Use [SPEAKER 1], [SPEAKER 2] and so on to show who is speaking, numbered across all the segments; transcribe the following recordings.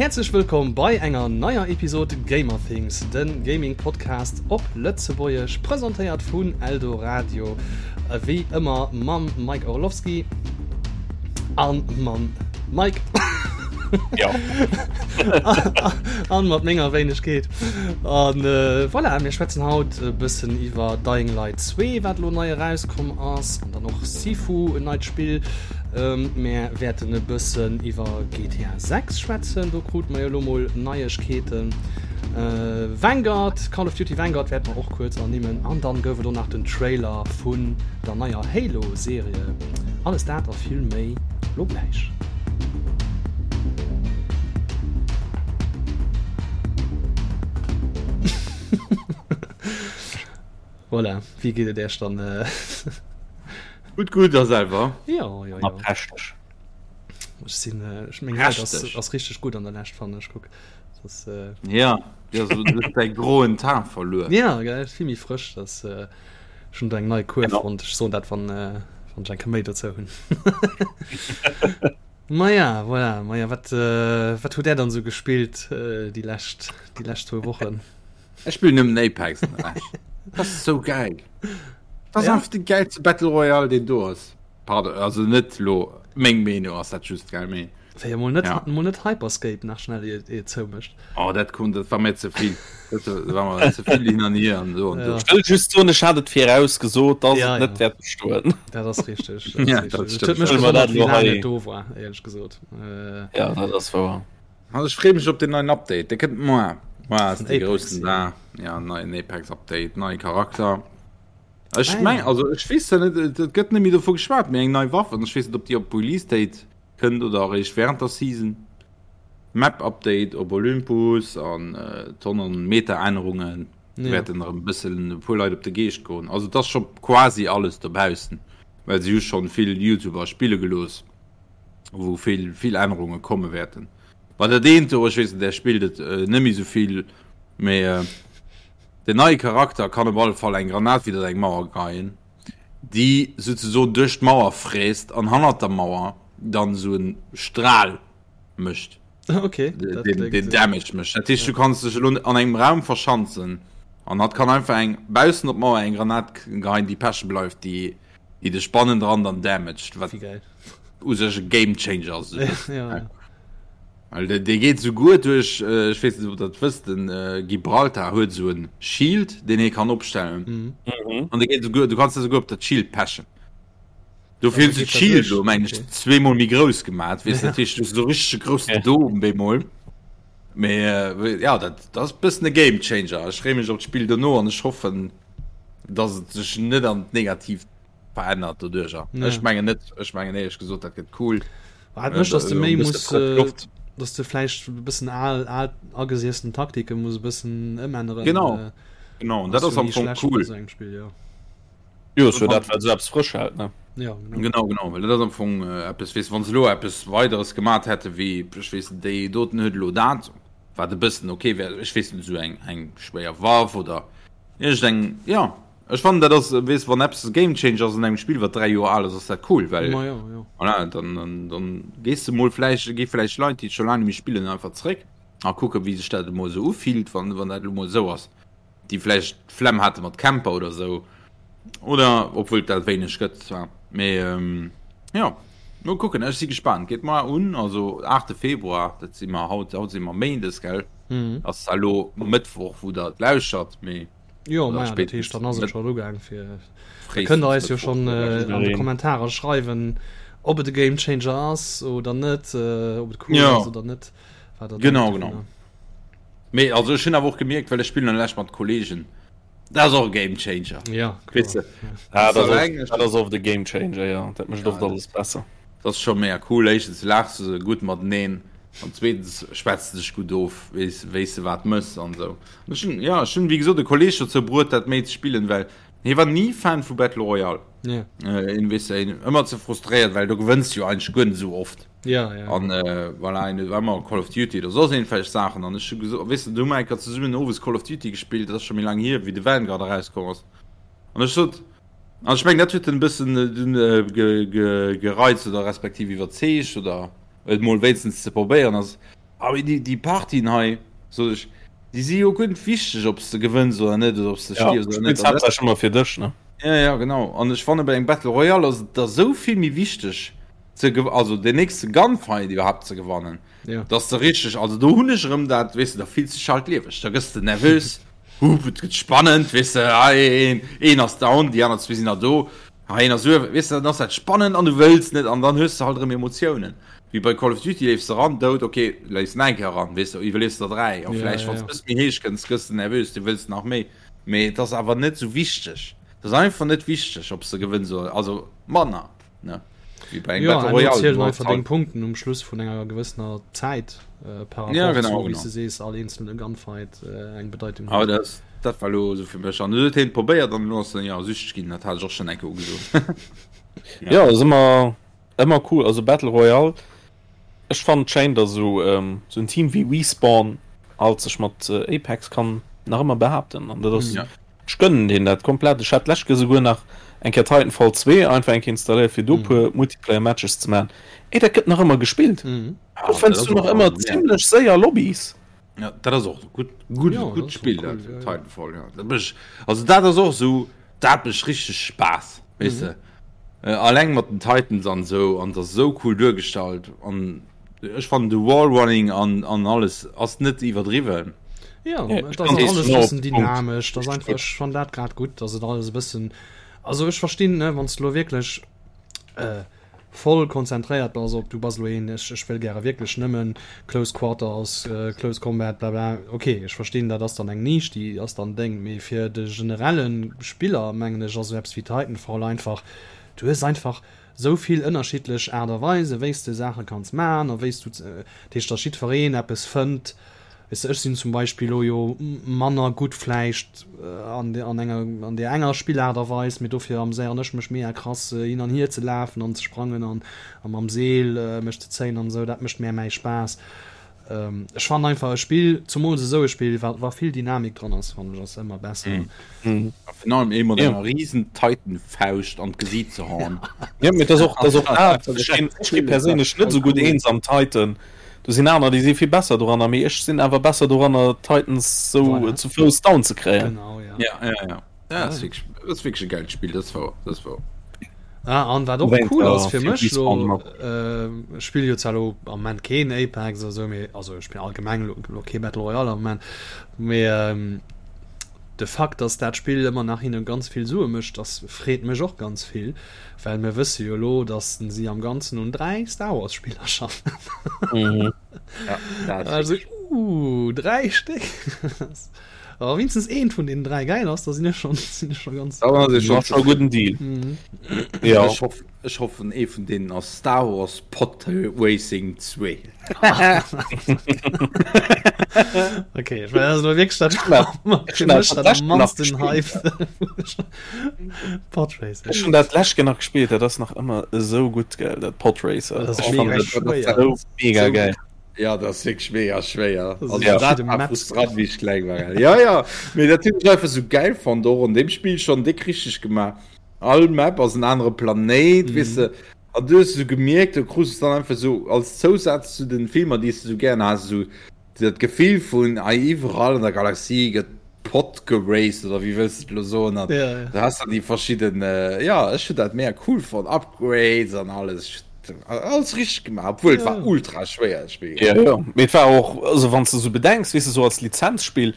[SPEAKER 1] Häerzlech wëllkomm bei enger neier Episod Gamerthings, de Gaming Podcast op Lëtzebuergesch, presentéiert vun Eldoradio, wéi ëmmer mam Mike Orlowski an mam Mike.
[SPEAKER 2] Ja.
[SPEAKER 1] An mat menger Wéinegkeet. An äh, voilà, mir schwätzen haut e bëssen iwwer Dying Light 2, wat lo nei erauskomm ass, an dann och Sifu, en neit Spill. Ähm, mär wäerten e bëssen iwwer GTA 6 schwätzen, do krute mer jo lo mol Neiegkeeten. Äh, Vanguard, Call of Duty Vanguard wäerte mer och kuerz ernimmen. An dann gouf et och nach den Trailer vun der neier Halo-Serie. Alles dat a vill méi lo gläich. Voilà, wéi geet et Iech dann?
[SPEAKER 2] Gutt, gutt, a selwer?
[SPEAKER 1] Jo, jo,
[SPEAKER 2] jo. Prächteg.
[SPEAKER 1] Ech sinn, ech meng Haut ass, ass richteg gutt an der Lescht, fannen ech. Kuck,
[SPEAKER 2] das ass. Ja, ja, so, du hues däi groen Teint verluer.
[SPEAKER 1] Ja, gell, vill méi frësch, das, ech hunn do eng nei Kur fonnt. Ech soen dat, wann, wann ech eng Kéier méi dozou hunn. Maja, voilà, maja, wat, wat hutt Där dann esou gespillt déi lescht, déi lescht zwou Wochen?
[SPEAKER 2] Ech spillen nëmmen Apex an der Lescht. Dat ass sou gäil. Dat ass einfach de gäilste Battle Royale deen do ass. Pardon, also net lo meng Meenung ass dat just gell mee.
[SPEAKER 1] Wéi emol net, ja. Emol net Hyperscape nach schnell ier et zoumécht.
[SPEAKER 2] Oh dat konnt, dat war mir ze vill. Dat war mir ze vill hin an hier an
[SPEAKER 3] so an ja. Ech wëll just soen, ech hat et viraus gesot, dass ja, et net ja. wäert bestoen.
[SPEAKER 1] Dat ass richteg. Dat ja, dat stimmt. Huet mech gewonnert, wéi laang et do war, éierlech gesot.
[SPEAKER 3] Äh, ja, dat ass wouer.
[SPEAKER 2] Also ech freeë mech op den neien Update, dee kënnt moar. Moar ass de groussen Dag. Ja, neien Apex Update, neie Charakter. Ech ah, meng, ja. also ech weess net, et gëtt net méi dovu geschwat, mee eng nei Waff an ech weess net, ob déi op Release Date kënnt oder eréischt während der Season. Map Update op Olympus an äh, Tonnen Meta-Ännerungen ja. wäerten erëm e bëssen e puer Leit op de Geescht goen. Also et ass scho quasi alles dobaussen, well se hu schonn vill YouTuber spille gelooss. wou vill vill Ännerunge komme wäerten. Bei dat eent do, ech weess net, där spillt et äh, net méi sou vill, mee äh, den neie Charakter kann op alle Fall eng Granat widder eng Mauer geien, déi souzesoen duerch d'Mauer fräst an hannert der Mauer dann sou en Stral mécht.
[SPEAKER 1] Okay.
[SPEAKER 2] Den, den, den Damage mécht. Dat heescht, du kanns dech elo an engem Raum verschanzen an hatt kann einfach eng baussen op d'Mauer eng Granat geien, déi peche bleift, déi déi dech bannendran dann damaged, wat u sech e Game Changer ass.
[SPEAKER 1] Ja, ja.
[SPEAKER 2] Well dee, dee geet souguer duerch, äh, ech weess net, ob der dat wësst, den äh, Gibraltar huet esou en Shield, deen hie kann opstellen.
[SPEAKER 1] Mhm.
[SPEAKER 2] Mhm. An dee geet souguer, du kanns da souguer op dat Shield pechen. Dofir hunn se d'Shield elo, meng ech, zweemol méi grouss gemaat, weess, dat heescht, du hues esou richtege groussen Dom bemol. Mee äh, ja, dat, dat ass e bëssen e Game Changer. Ech freeë mech op d'Spill dono an ech hoffen, dass et sech net an d'Negatiivt verännert doduercher. Ja. Ech mengen net, ech mengen éierlech gesot, dat gëtt cool.
[SPEAKER 1] Wat mécht, dass du méi muss, äh, dass du vläicht e bëssen al, al agesiessen Taktike muss e bëssen ëmänneren.
[SPEAKER 2] Genau. Äh, genau, dat ass am Fong cool.
[SPEAKER 1] So engem Spill, ja.
[SPEAKER 3] Jo, ass jo dat, wat esou eppes frësch hält, ne?
[SPEAKER 1] Ja,
[SPEAKER 2] genau. Genau, genau, well dat ass am Fong äh, eppes, weess, wann se elo eppes Weideres gemat hätte wéi, ech weess net, déi doten huet elo dat, wat e bëssen okay wär, ech weess net, esou eng, eng schwéier Waff oder iergendeng, ja. Ech fannen dat ass, weess, wann eppes e Game Changer ass an engem Spill wat 3 Joer al ass, ass dat cool, well
[SPEAKER 1] Ma jo, jo.
[SPEAKER 2] voilà, dann, dann, dann gees de mol vläicht, gi vläicht Leit, déi scho laang net méi spillen, einfach zréck a kucke wéi sech dat emol esou ufillt, wann, wann dat elo mol esou ass. Déi vläicht d'Flemm hate mat Camper oder esou, oder obwuel et dat wéineg gëtt zwar, mee jo, mol kucken, ech si gespaant. Geet mar un, also 8 Februar, dat si mer haut, haut si mer Méindes, gell? Ass zwar elo Mëttwoch wou der et lauschert, mee.
[SPEAKER 1] Jo, ma dat heescht, dann ass et schon ugaang fir kënnt der eis jo schon äh, an de Kommentarer schreiwen, ob et e Game Changer ass oder net, äh, ob et cool
[SPEAKER 2] ja.
[SPEAKER 1] ass oder net.
[SPEAKER 2] Wat genau, genau. Mee also ech hunn awer och gemierkt, well ech spillen an lech mat Kollegen. Dat ass och e Game Changer.
[SPEAKER 1] Ja,
[SPEAKER 2] weißt du?
[SPEAKER 3] ja. Ah, dat ass, dat ass oft e Game Changer, ja. Dat mécht ja, oft alles besser.
[SPEAKER 2] Dat ass scho mega cool. Éischtens laachs du gutt mateneen. An zweetens schwätz de dech gutt of, weess, wéis de wat mëss an esou. An ech hunn, ja, ech hunn wéi gesot e Kolleeg dozou bruet dat méi ze spillen, well hie war ni Fan vu Battle Royale.
[SPEAKER 1] Ja.
[SPEAKER 2] Äh, en weess de, en ëmmer ze frustréiert, well do gewënns du jo eigentlech guer net esou oft.
[SPEAKER 1] Ja, ja.
[SPEAKER 2] An äh, voilà, en huet ëmmer Call of Duty oder soss iergendwelch Saachen. An ech hu gesot, weess de, du hu mer eng Kéier zesummen owes Call of Duty gespillt, dat ass scho méi laang hier, wéi de Vanguard erauskomm ass. An ech sot, an ech mengen dat huet en e bëssen dunn ge, ge, gereizt oder respektiv iwwerzeegt oder et mol wéinstens ze probéieren ass. Awer déi, déi Partien hei, sot ech, déi si jo guer net wichteg, ob s de gewënns oder net oder ob s de
[SPEAKER 3] Ja,
[SPEAKER 2] stierfs
[SPEAKER 3] du
[SPEAKER 2] oder net.
[SPEAKER 3] spills haaptsächlech ëmmer fir dech, ne?
[SPEAKER 2] Ja, ja, genau. An ech fanne bei engem Battle Royale ass et da sou vill méi wichteg ze gew-, also den nächste Gunfight iwwerhaapt ze gewannen,
[SPEAKER 1] Ja.
[SPEAKER 2] dass de richteg, also do hunn ech erëm dat, weess de, da fills de dech halt lieweg, da gëss de nervös, hup, et gëtt spannend, weess de, hei een, een ass down, déi aner zwee sinn nach do, hei een ass uewen, weess de, dann ass dat spannend an du wëlls net an dann hues de halt erëm Emotiounen. Wéi bei Call of Duty leefs de eran, dout, ok, leefs nach eng Kéier eran, weess de, iwwerliefs der 3 a vläicht wann s de e bësse méi héich kënns, gëss de nervös, du wëlls nach méi, mee et ass awer net esou wichteg, et ass einfach net wichteg, ob s de gewënns oder, also manner, ne,
[SPEAKER 1] wéi bei engem Battle Royale. Jo, zielen einfach deng Punkten um Schluss vun enger gewëssener Zäit par rapport zu, wéi s de sees, all eenzelne Gunfight eng Bedeitung
[SPEAKER 2] huet. Awer dat, dat war elo esou fir mech an du huet hien et probéiert an elo ass en, jo, süchteg ginn, dat hat ech och schonn eng Kéier ugesot.
[SPEAKER 3] Jo, ass ëmmer Ëmmer cool, also Battle Royale, ech fannen et schéin dass esou esou en Team wéi Respawn alt sech mat Apex kann nach ëmmer behaapten an dat ass, ech gönnen deenen dat komplett. Ech hat d'lescht Kéier esouguer nach eng Kéier Titanfall 2 einfach eng Kéier installéiert fir do puer Multiplayer Matches ze maachen. Ey dat gëtt nach ëmmer gespillt, do fënns du nach ëmmer zimlech séier Lobbys.
[SPEAKER 2] Ja, dat ass och gutt gutt gutt Spill dat Titanfall ja. Dat mech also dat ass och sou dat mech richteg Spaass weess de. Äh, alleng mat den Titans an sou an dat sou cool duergestallt an ech fannen de Wallrunning an an alles ass net iwwerdriwwen.
[SPEAKER 1] Ja, ja dat ass alles e bëssen dynamesch, dat ass einfach ech fann dat grad gutt, dass et alles e bëssen also ech verstinn ne wann s de lo wierklech äh, voll konzentréiert bass op du bass elo een ech ech wëll gäre wierklech nëmmen close quarters, close combat bla bla ok ech verstinn dat ass dann eng Nisch déi ass dann deng, mee fir de generelle Spiller mengen ech ass esou eppes wéi Titanfall einfach du hues einfach esou vill ënnerschiddlech Aart a Weise wéi s de Saache kanns man a wéi s du dat heescht datt jiddwereen eppes fënnt Weess de, ech sinn zum Beispill elo jo manner gutt vläicht an an enger an där enger Spillaart a Weis, mee dofir ameséieren ech mech mega krass hin an hier ze lafen an ze sprangen an a mam Seel mech ze zéien an esou, dat mécht mär mäi Spaass. Ech fannen einfach e Spill, zumools esou e Spill, wa wa vill Dynamik dran ass, fannen ech ass ëmmer besser.
[SPEAKER 2] A virun allem ee mat enger riesen Titan-Fauscht an d'Gesiit ze haen.
[SPEAKER 3] Jo, mee et ass och, et ass och dat, ech ginn, ech gi perséinlech net esou gutt eens am Titan. Do sinn aner, déi si vill besser doranner, mee ech sinn awer besser doranner, Titans sou voilà. zu Fouss down ze kréien.
[SPEAKER 1] Genau,
[SPEAKER 2] ja. Ja, ja, ja. Ja, das ist wirklich, das ist wirklich ein geiles Spiel, das war, das war.
[SPEAKER 1] Ah, an wat och cool ass fir mech lo, äh, spill jo zwar lo am Moment keen Apex oder sou, mee also ech spill allgemeng lo, lo kee Battle Royale am Moment, mee ähm, de Fakt, dass dat Spill ëmmer nach hinne ganz vill Sue mécht, das freet mech och ganz vill. Well mir wësse jo elo, datt si am Ganzen un 3 Star Wars Spiller schaffen.
[SPEAKER 3] Mhm.
[SPEAKER 1] Ja, also, uh, 3 Stéck. Awer wéinstens eent vun deenen 3 gäil ass, da sinn ech schon, sinn ech schon ganz.
[SPEAKER 2] Da ass
[SPEAKER 3] schon, schon gudden Deal.
[SPEAKER 1] Mhm.
[SPEAKER 3] Ja.
[SPEAKER 2] Ech hoff, ech hoffen ee vun deenen ass Star Wars Pod Racing 2.
[SPEAKER 1] Okay, ich meine, also wirklich dat dat am mannsten Hype. Podracer.
[SPEAKER 3] Ech hunn dat d'lescht Kéier nach gespillt, dat ass nach ëmmer esou gutt, gell, dat Podracer.
[SPEAKER 1] Dat ass mega schwéier.
[SPEAKER 3] Esou mega geil.
[SPEAKER 2] Ja, dat ass wierklech mega schwéier.
[SPEAKER 1] Das
[SPEAKER 2] Also,
[SPEAKER 1] ist
[SPEAKER 2] dat
[SPEAKER 1] verschidde
[SPEAKER 2] war
[SPEAKER 1] Maps.
[SPEAKER 2] frustrant, wéi ech kleng war. Gell. Ja, ja, mee dat hunn ech einfach sou geil fonnt, och an deem Spill schonn déck richteg gemaach. All Map ass en anere Planéit, weess de. An du hues esou gemierkt, du krus es dann einfach sou als Zousaz zu den Filmer, déi s de sou gären has, esou dat Gefill vun, ei iwwerall an der Galaxie gëtt Pod geraced oder wéi wëlls de et elo soen an
[SPEAKER 1] Ja, ja.
[SPEAKER 2] du has dann déi verschidden, jo ech hunn dat mega cool fonnt, Upgrades an alles, ech hunn alles richteg gemaach, obwuel et war
[SPEAKER 1] Ja.
[SPEAKER 2] ultra schwéier dat Spill.
[SPEAKER 3] Ja, jo, mee et war och, also wann s de sou bedenks, weess de, sou als Lizenzspill,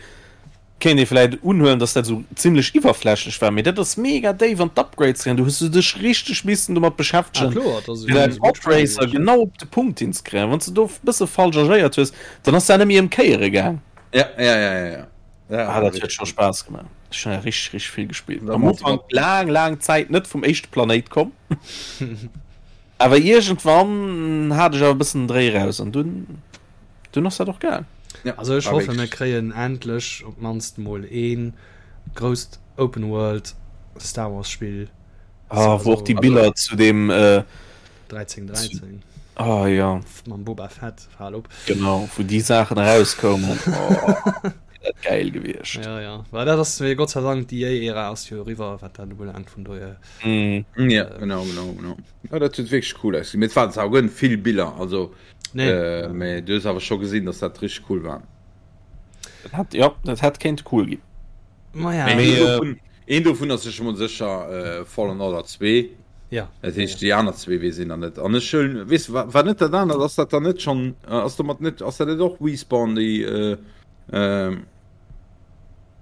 [SPEAKER 3] Kéint ee vläit unhuelen, dass dat esou zimlech iwwerflächlech war, mee dat ass mega déif an d'Upgrades gaangen. Du hues du dech richteg missen domat
[SPEAKER 1] Ah
[SPEAKER 3] beschäftegen,
[SPEAKER 1] kloer, dat ass
[SPEAKER 3] fir däi
[SPEAKER 1] e gutt Spill
[SPEAKER 3] Podracer
[SPEAKER 1] gewiescht.
[SPEAKER 3] genau op de Punkt hinzekréien. Wann s de do e bësse falsch agéiert hues, dann ass dat net méi ëmkéiere gaang.
[SPEAKER 2] Ja, ja, ja, ja, ja. Ja,
[SPEAKER 3] Ah,
[SPEAKER 2] war
[SPEAKER 3] dat huet
[SPEAKER 2] richteg
[SPEAKER 3] scho
[SPEAKER 2] gutt.
[SPEAKER 3] Spaass gemaach. Ech hunn richteg, richteg vill gespillt.
[SPEAKER 2] Da
[SPEAKER 3] Am
[SPEAKER 2] mat,
[SPEAKER 3] Ufank
[SPEAKER 2] mat.
[SPEAKER 3] laang, laang Zäit net vum éischte Planéit komm. Awer iergendwann hat ech awer e bëssen den Dréi raus an dunn dunn ass dat och gaang.
[SPEAKER 2] Ja,
[SPEAKER 1] Also ech
[SPEAKER 2] war
[SPEAKER 1] hoffe mir
[SPEAKER 2] wierklech.
[SPEAKER 1] kréien endlech op d'mannst mol ee grousst Open World Star Wars Spill.
[SPEAKER 3] Ah, wou och déi
[SPEAKER 1] Also
[SPEAKER 3] Biller zu deem äh,
[SPEAKER 1] 1313
[SPEAKER 3] ah ja,
[SPEAKER 1] mam Boba Fett, fal op.
[SPEAKER 3] genau, wou déi Saachen erauskoumen. Oh, dat gäil gewiescht.
[SPEAKER 1] Ja, ja. Well dat ass Gott sei Dank déi EA-Ära ass jo eriwwer, wat dat ubelaangt, vun dohier.
[SPEAKER 3] Mm.
[SPEAKER 2] Ja, genau, genau, genau. Ja, dat huet wierklech cool ausgesinn. Mee et waren zwar och vill Biller, also. Nee. Äh, mee du hues awer scho gesinn, dass dat richteg cool war.
[SPEAKER 3] Dat hätt, ja, dat hätt kéinte cool ginn.
[SPEAKER 1] Ma ja.
[SPEAKER 2] Mee
[SPEAKER 3] Mee,
[SPEAKER 2] een dovun, een dovun ass sech emol sécher äh, Fallen Order 2.
[SPEAKER 1] Ja.
[SPEAKER 2] Dat heescht, déi aner zwee weess een nach net. An ech hunn, weess du, war, war net dat anert, ass dat dann net schonn, äh, ass domat net, ass dat net och Respawn, déi äh, äh,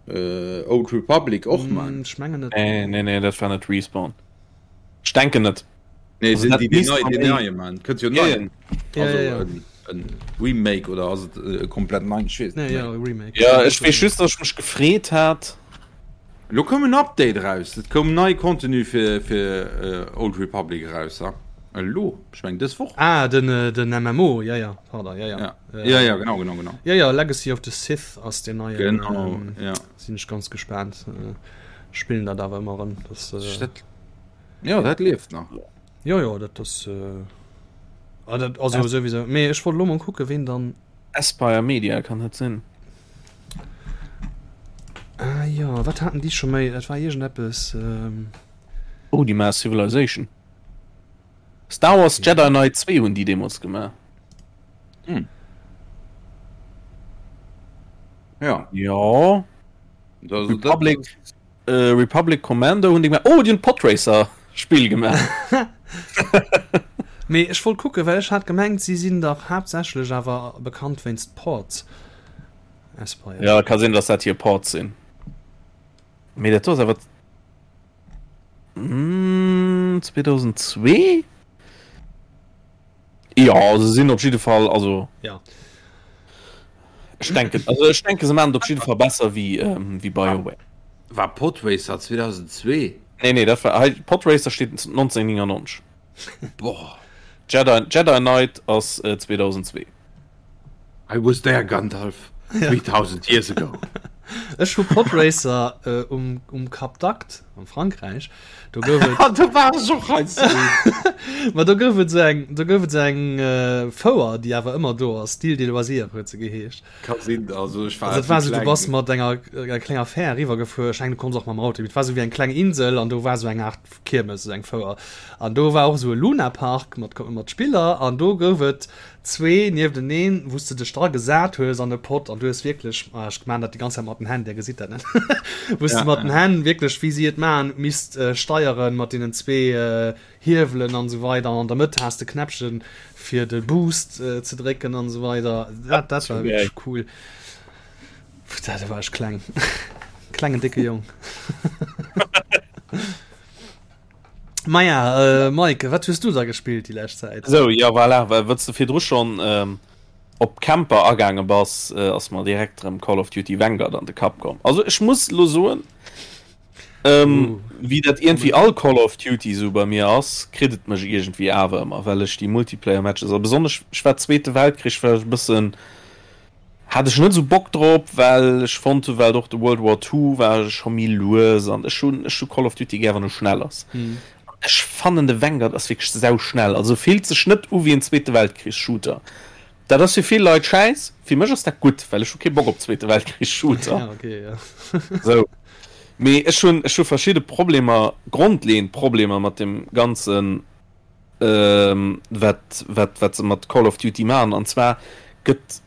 [SPEAKER 2] äh, Old Republic och man?
[SPEAKER 1] Mm, ech mengen net.
[SPEAKER 3] Nee, nee, nee, dat war net Respawn. Ech denken net.
[SPEAKER 2] Nee,
[SPEAKER 3] Also
[SPEAKER 2] sind
[SPEAKER 3] dat
[SPEAKER 2] die, die
[SPEAKER 3] misst
[SPEAKER 2] nei,
[SPEAKER 3] man
[SPEAKER 2] den
[SPEAKER 3] méi-
[SPEAKER 2] neie man. Kënnt jo
[SPEAKER 1] Ja,
[SPEAKER 2] nei.
[SPEAKER 1] ja. Ja,
[SPEAKER 2] Also
[SPEAKER 1] ja, ja.
[SPEAKER 2] en, en Remake oder ass et äh, komplett nei? Ich weess
[SPEAKER 1] Nee,
[SPEAKER 2] net
[SPEAKER 1] ja,
[SPEAKER 2] méi.
[SPEAKER 1] Remake.
[SPEAKER 3] Ja, ech weess just, dass ech mech gefreet hat.
[SPEAKER 2] Lo koum en Update raus. Et koum nei Contenu fir, fir äh, Old Republic raus. Ja? Elo, ech meng dës Woch.
[SPEAKER 1] Ah, den, äh, den MMO, ja, ja, pardon, ja, ja.
[SPEAKER 2] Ja.
[SPEAKER 1] Äh,
[SPEAKER 2] ja, ja, genau, genau, genau.
[SPEAKER 1] Ja, ja, Legacy of the Sith ass den neien.
[SPEAKER 2] Genau,
[SPEAKER 1] ähm,
[SPEAKER 2] ja.
[SPEAKER 1] Sinn ech ganz gespaant. Äh, spillen dat awer ëmmer erëm. Das, äh,
[SPEAKER 2] Dat, ja, dat lieft nach.
[SPEAKER 1] Jo, jo, dat ass. Äh, ah, dat, also As souwisou. Mee ech wollt lo mol kucke ween dann.
[SPEAKER 3] Aspyr Media kann dat sinn.
[SPEAKER 1] Ah jo, wat haten déi scho méi? Dat war iergendeppes. Ähm...
[SPEAKER 3] Oh, déi maache Civilization. Star Wars Jedi Knight 2 hunn déi deemools gemaach.
[SPEAKER 2] Hm. Ja.
[SPEAKER 3] Ja.
[SPEAKER 2] Das,
[SPEAKER 3] Republic. Dat, Republic Commando hunn déi gemaach. Oh, déi hunn d'Podracer Spill gemaach.
[SPEAKER 1] Mee ech wollt kucken, well ech hat gemengt, si sinn dach haaptsächlech awer bekannt wéinst Ports. Aspyr.
[SPEAKER 3] Ja, ka sinn, dass dat hir Ports sinn. Mee dat do ass awer 2002? Ja, se sinn op jidde Fall, also
[SPEAKER 1] Ja.
[SPEAKER 3] ech denken, also ech denke se maachen et op jidde Fall besser wéi, ähm, wéi BioWare.
[SPEAKER 2] War Podracer 2002?
[SPEAKER 3] Nee, nee, dat war hei, Podracer steet 1999.
[SPEAKER 2] Boah.
[SPEAKER 3] Jedi, Jedi Knight ass äh, 2002.
[SPEAKER 2] I was there, Gandalf, 3000 years ago.
[SPEAKER 1] Ech hu Podracer äh, um, um Cap d'Agde am Frankräich. Do gouf et.
[SPEAKER 2] Ah, do war ech och heiansdo.
[SPEAKER 1] Ma do gouf et sou eng, do gouf et sou eng äh, Fouer, déi awer ëmmer do ass. D'Île des Loisirs huet se geheescht.
[SPEAKER 2] Ka sinn, also ech war
[SPEAKER 1] Also et war
[SPEAKER 2] zu
[SPEAKER 1] sou, du
[SPEAKER 2] kleng.
[SPEAKER 1] bass mat enger, enger klenger Fähr eriwwergefuer. Ech mengen, du konns och mam Auto. Et war sou wéi eng kleng Insel an do war sou eng Aart Kiermes, sou eng Fouer. An do war och sou e Lunapark mat, mat Spiller an do gouf et zwee niefteneen, wou s de dech dra gesat hues an e Pott an du hues wierklech, ah ech maan dat déi ganz Zäit mat den Hänn, där gesitt dat net, wou s de mat den Hänn wierklech, wéi si et maachen, misst steieren mat deenen zwee Hiewelen an esou weider an an der Mëtt has de Knäppchen fir de Boost ze drécken an esou weider. Dat dat war wierklech cool. Putain, do war ech kleng. Klengen décke Jong. Maja, äh, Mike, wat hues du da gespillt déi lescht Zäit?
[SPEAKER 3] Sou, ja voilà, well wëlls de virdru schonn ähm, op Camper agaange bass, äh, ass mer direkt rëm Call of Duty Vanguard an de Kapp komm. Also ech muss lo soen, ähm,
[SPEAKER 1] Uh,
[SPEAKER 3] wéi dat iergendwéi all Call of Duty sou bei mir ass, kritt et mech iergendwéi awer ëmmer, well ech déi Multiplayer-Matches, a besonnesch ech war Zweete Weltkrich war ech e bëssen, Hat ech net esou Bock drop, well ech fonnt hu well och de World War Two war scho méi lues an ech hunn ech hu Call of Duty gär wann e schnell ass. An ech fannen de Vanguard ass wierklech sau schnell, also fillt sech net u wéi en Zweete Weltkrich Shooter. Dat ass fir vill Leit schäiss, fir mech ass dat gutt, well ech hu kee Bock op Zweete Weltkrich Shooter.
[SPEAKER 1] Ja, okay, ja.
[SPEAKER 3] Sou, mee ech hunn ech hu verschidde Problemer, grondleeënd Problemer mat dem ganzen wat, wat, wat se mat Call of Duty maachen. An zwar gëtt,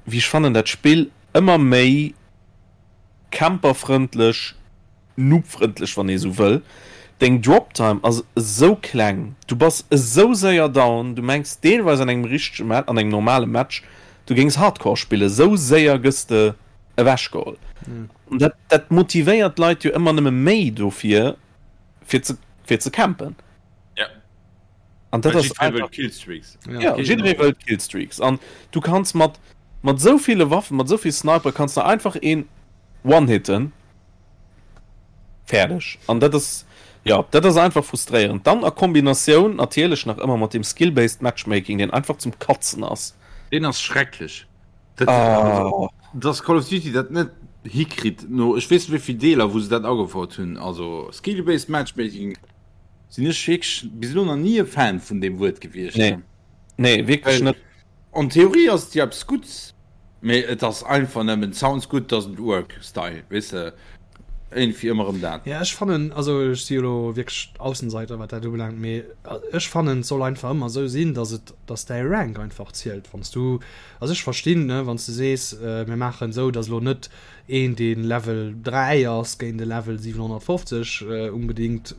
[SPEAKER 3] wéi ech fannen, dat Spill ëmmer méi camperfrëndlech, noobfrëndlech, wann ee sou wëll. Deng Drop Time ass esou kleng, du bass esou séier down, du mengs deelweis an engem richtege Match, an engem normale Match, du géings Hardcore spillen, esou séier gëss de ewechgeholl. An dat, dat motivéiert d'Leit jo ëmmer nëmme méi dofir, fir ze, fir ze campen.
[SPEAKER 2] Ja.
[SPEAKER 3] An dat ass
[SPEAKER 2] einfach Killstreaks.
[SPEAKER 3] Ja, jidderee wëllt Killstreaks. An du kanns mat mat esou ville Waffen, mat esou vill Sniper kanns de einfach een one-hitten. Fäerdeg. An dat ass ja, dat ass einfach frustréierend. Dann a Kombinatioun natierlech nach ëmmer mat deem Skill-based Matchmaking, deen einfach zum Katzen ass.
[SPEAKER 2] Deen ass schrecklech. Dat,
[SPEAKER 3] Ah.
[SPEAKER 2] also, dass Call of Duty dat net hikritt no ech weess net wéi vill Deeler wou se dat agefouert hunn, also Skill-based Matchmaking sinn ech wierklech bis elo nach ni e Fan vun deem Wuert gewiescht.
[SPEAKER 3] Nee. Nee, wierklech
[SPEAKER 2] Well
[SPEAKER 3] net.
[SPEAKER 2] an Theorie ass et jo eppes Gutts, mee et ass einfach nëmmen sounds good doesn't work Style, weess de. Iergendwéi ëmmer erëm dat.
[SPEAKER 1] Ja, ech fannen, also ech si jo elo wierklech Aussenseiter, wat dat ubelaangt, mee ech fannen, et soll einfach ëmmer esou sinn, dass et, dass däi Rank einfach zielt. Wann s du, also ech verstinn, ne, wann s du sees, mir maachen esou, dass elo net een, dee Level 3 ass, géint e Level 750 unbedéngt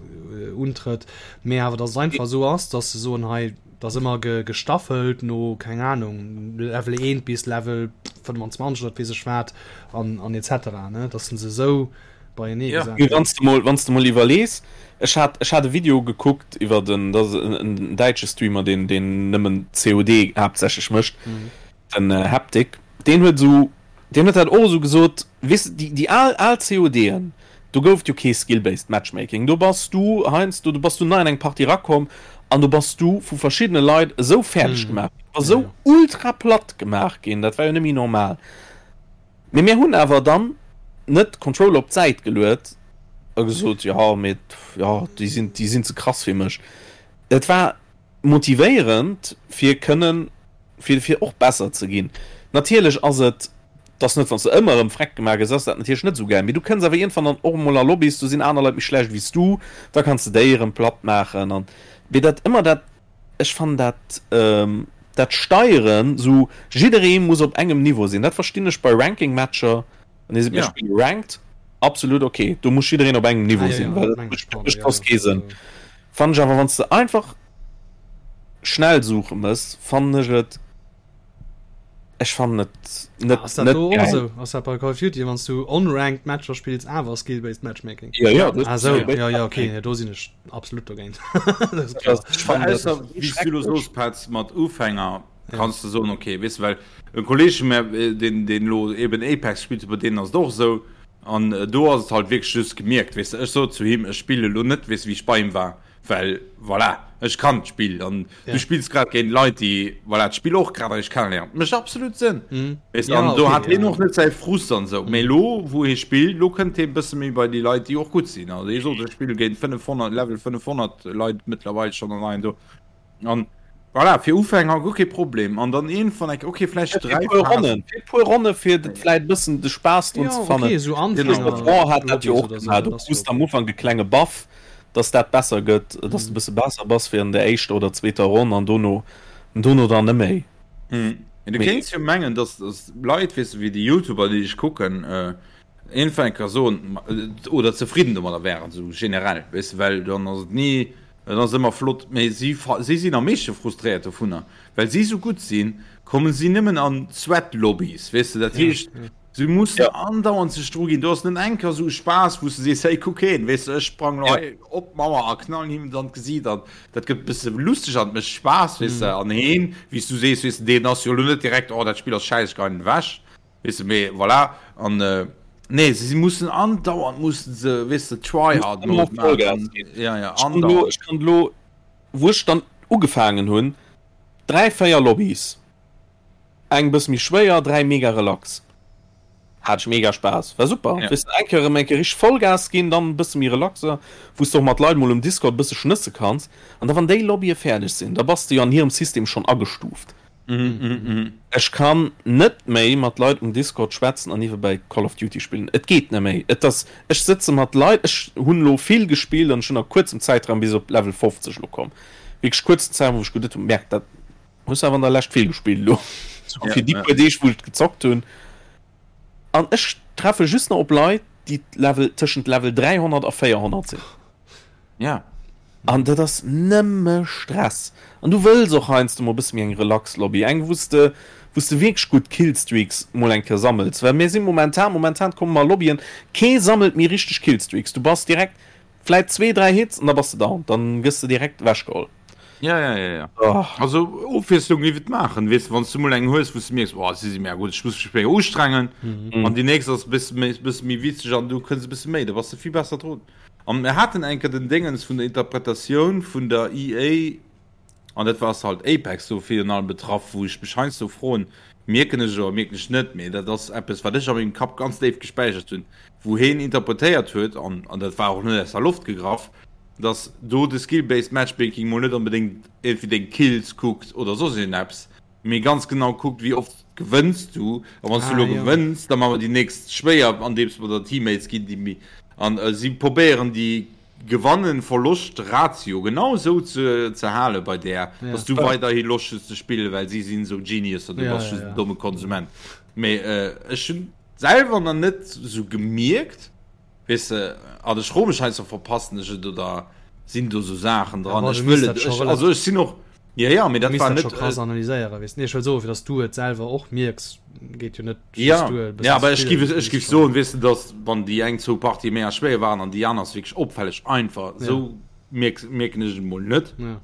[SPEAKER 1] untrëtt, mee awer dass et einfach esou ass, dass se soen, hei, Et ass ëmmer gestaffelt no, keng Ahnung, Level 1 bis Level 25 oder weess ech wat an, an etc. Ne? Dass se esou beienee
[SPEAKER 3] ja. gesat Wann s de mol, wann s de mol iwwerlees, ech hat, ech hat e Video gekuckt iwwer den, dat ass en, en däitsche Streamer, deen, deen nëmmen COD haaptsächlech mécht, mhm. den äh, Haptic, deen huet esou, deen huet dat och esou gesot, weess de, déi, déi al, al CODen, Do gouf et jo kee Skill-based Matchmaking. Do bass du heiansdo, do bass du nei an eng Partie erakomm an do bass du vu verschiddene Leit esou fäerdeg gemaach ginn, du bass esou ultra platt gemaach ginn, dat war jo net méi normal. Mee mir hunn awer dann net d'Controller op d'Säit geluet a gesot, jo mee jo déi sinn, déi sinn ze krass fir mech. Et war motivéierend fir kënnen, fir fir och besser ze ginn. Natierlech ass et, dass net wann s de ëmmer erëm freck gemaach gëss, ass dat natierlech net esou gäil, mee du kënns awer iergendwann dann och emol a Lobbys, do sinn aner Leit méi schlecht wéi s du, da kanns de déi erëm platt maachen an mee dat ëmmer dat, ech fannen dat dat Steieren esou, jidderee muss op engem Niveau sinn, dat verstinn ech bei Ranking-Matcher, wann ee seet mir spille Ranked, absolut ok, do muss jiddereen op engem Niveau sinn, well dat mécht soss kee Sënn. Fannen ech awer wanns de einfach schnell suche mëss fannen ech et ech fannen et net
[SPEAKER 1] Ass dat
[SPEAKER 3] net
[SPEAKER 1] do och
[SPEAKER 3] geil.
[SPEAKER 1] esou? Ass dat bei Call of Duty wanns du unranked Matcher spills awer skill-based Matchmaking?
[SPEAKER 3] Ja ja
[SPEAKER 1] Ah sou, ja ja okay, nee, do sinn ech absolut dogéint. Dat ass klar.
[SPEAKER 3] Ech fannen dat
[SPEAKER 2] Ausser wéi s du lo soos Petz mat Ufänger kanns de soen okay weess de well e Kolleg vu mär deen deen lo eben Apex spillt bei deenen ass et och esou An do ass et halt wierklech just gemierkt, weess de, ech sot zu him, ech spille lo net, weess de, wéi ech bei him war, well voilà, ech kann d'Spill an du spills grad géint Leit, déi voilà d'Spill och grad eréischt kenneléieren. Mécht absolut Sënn, weess de, an do hat hien och net säi Frust an esou. Mee elo, wou hie spillt, elo kënnt hie e bësse méi bei déi Leit, déi och gutt sinn. Also hie sot, ech spille géint 500, Level 500 Leit mëttlerweil schonn an hei an do. An voilà, fir Ufänger guer kee Problem. An dann iergendwann eng, okay, vläicht
[SPEAKER 3] dräi Phasen. Ronnen, fir puer Ronne fir dat vläicht e bëssen de Spaass drun ze fannen.
[SPEAKER 1] Okay, esou Anfänger.
[SPEAKER 3] War hat dat jo och gemaach, du krus am Ufank e klenge Buff, dass dat besser gëtt, dass de e bësse besser bass wéi an der éischter oder zweeter Ronn an dono, dono dann net méi.
[SPEAKER 2] Mee du kéints jo mengen, dass Leit, weess de, wéi déi Youtuber, déi ech kucken, iergendwann eng Kéier soen, oder zefridden domadder wären, esou generell, weess de, well dann ass et ni. Et ass ëmmer flott, mee si si sinn am meeschte frustréiert dovunner, well si sou gutt sinn, kommen si nëmmen an Sweat-Lobbys, weess de. Dat heescht, si mussen andauernd sech dru ginn. Do ass net eng Kéier sou e Spaass, wou s de sees, hey, kuck heen, weess de, ech sprang lo hei op d'Mauer a knallen him et an d'Gesiit an dat gëtt e bësse lusteg an et mécht Spaass, weess de. An heen, wéi s du sees, weess de, deen ass jo lo net direkt, oh, dat Spill ass schäiss, ech geien ewech. Weess de, mee voilà, an nee, se mussen andauernd mussen se, weess de, Tryhard
[SPEAKER 3] Mode maachen. Ja, ja, andauernd. Ech kann elo, wou ech dann ugefaangen hunn, 3, 4 Lobbys, eng bësse méi schwéier, 3 mega relax, hat ech mega Spaass, war super. Ja. Weess de, eng Kéier erëm eng Kéier richteg Vollgas ginn, dann e bësse méi relaxer, wou s de och mat Leit mol um Discord e bësse schnësse kanns. An da wann déi Lobbye fäerdeg sinn, da bass de jo an hirem System schonn agestuuft. Ech kann net méi mat Leit um Discord schwätzen an niewebäi Call of Duty spillen. Et geet net méi. Et ass, ech sëtze mat Leit, ech hunn elo vill gespillt an ech hunn a kuerzem Zäitraum bis op Level 50 elo komm. Wierklech kuerzen Zäitraum, wou ech geduet hunn, Merk, dat hues awer an der Lescht vill gespillt elo. Sou fir déi puer Deeg, wou ech gezockt hunn. An ech treffe just nach op Leit, déi Level, tëschent Level 300 a 400 sinn.
[SPEAKER 2] Ja.
[SPEAKER 3] An dat ass nëmme Stress. An du wëlls och heiansdo mol e bësse méi eng relax Lobby, eng wou s de, wou s de wierklech gutt Killstreaks mol eng Kéier sammels. Well mir si momentan, momentan komme mer a Lobbyen, kee sammelt méi richteg Killstreaks. Du bass direkt vläit zwee, dräi Hits an da bass de down, dann gëss de direkt ewechgeholl.
[SPEAKER 2] Ja, ja, ja, ja. Oh. Also Ofwiesslung géif et maachen, weess de, wann s du mol eng hues, wou s du mierks, oh, si si mega gutt, ech muss mech méi ustrengen. Mhm. An déi nächst ass e bësse méi, bësse méi witzeg an du kënns e bësse méi, da bass de vill besser drun. An mir haten eng Kéier den Déngens vun der Interpretatioun vun der EA, an dat war ass halt Apex do virun allem betraff, wou ech mech heiansdo froen, mierken ech et oder mierken ech net, mee dat ass eppes, wat ech a mengem Kapp ganz déif gespäichert hunn, wou heen interpretéiert huet, an an dat war och net aus der Loft gegraff, dass do de Skill-based Matchmaking mol net onbedéngt iergendwéi deng Kills kuckt oder soss iergendeppes, mee ganz genau kuckt, wéi oft gewënns du, a wann s du elo gewënns, da maache mer déi nächst schwéier, andeems mer der Teammates ginn, déi méi. An si probéieren déi Gewannen-Verloscht-Ratio genau esou ze ze hale bei där, dass du weiderhi Loscht hues ze spillen, well si sinn esou Geniuser, du bass just en domme Konsument. Mee ech hunn selwer nach net esou gemierkt, weess de, an ech froe mech heiansdo, verpassen ech et oder sinn do esou Saachen dran? Ech wëll et, also ech sinn och
[SPEAKER 1] Ja, ja, mee dat war net. Scho krass analyséieren, weess. Nee, ech wëll soen, fir dass du et selwer och mierks, geet jo net
[SPEAKER 2] just ja. duer. Ja, awer ech giff, ech giff soen, weess de, dass wann déi eng zwou Partië méi schwéier waren an déi aner ass wierklech opfälleg einfach, ja. sou mierks, mierken ech et emol net. Ja.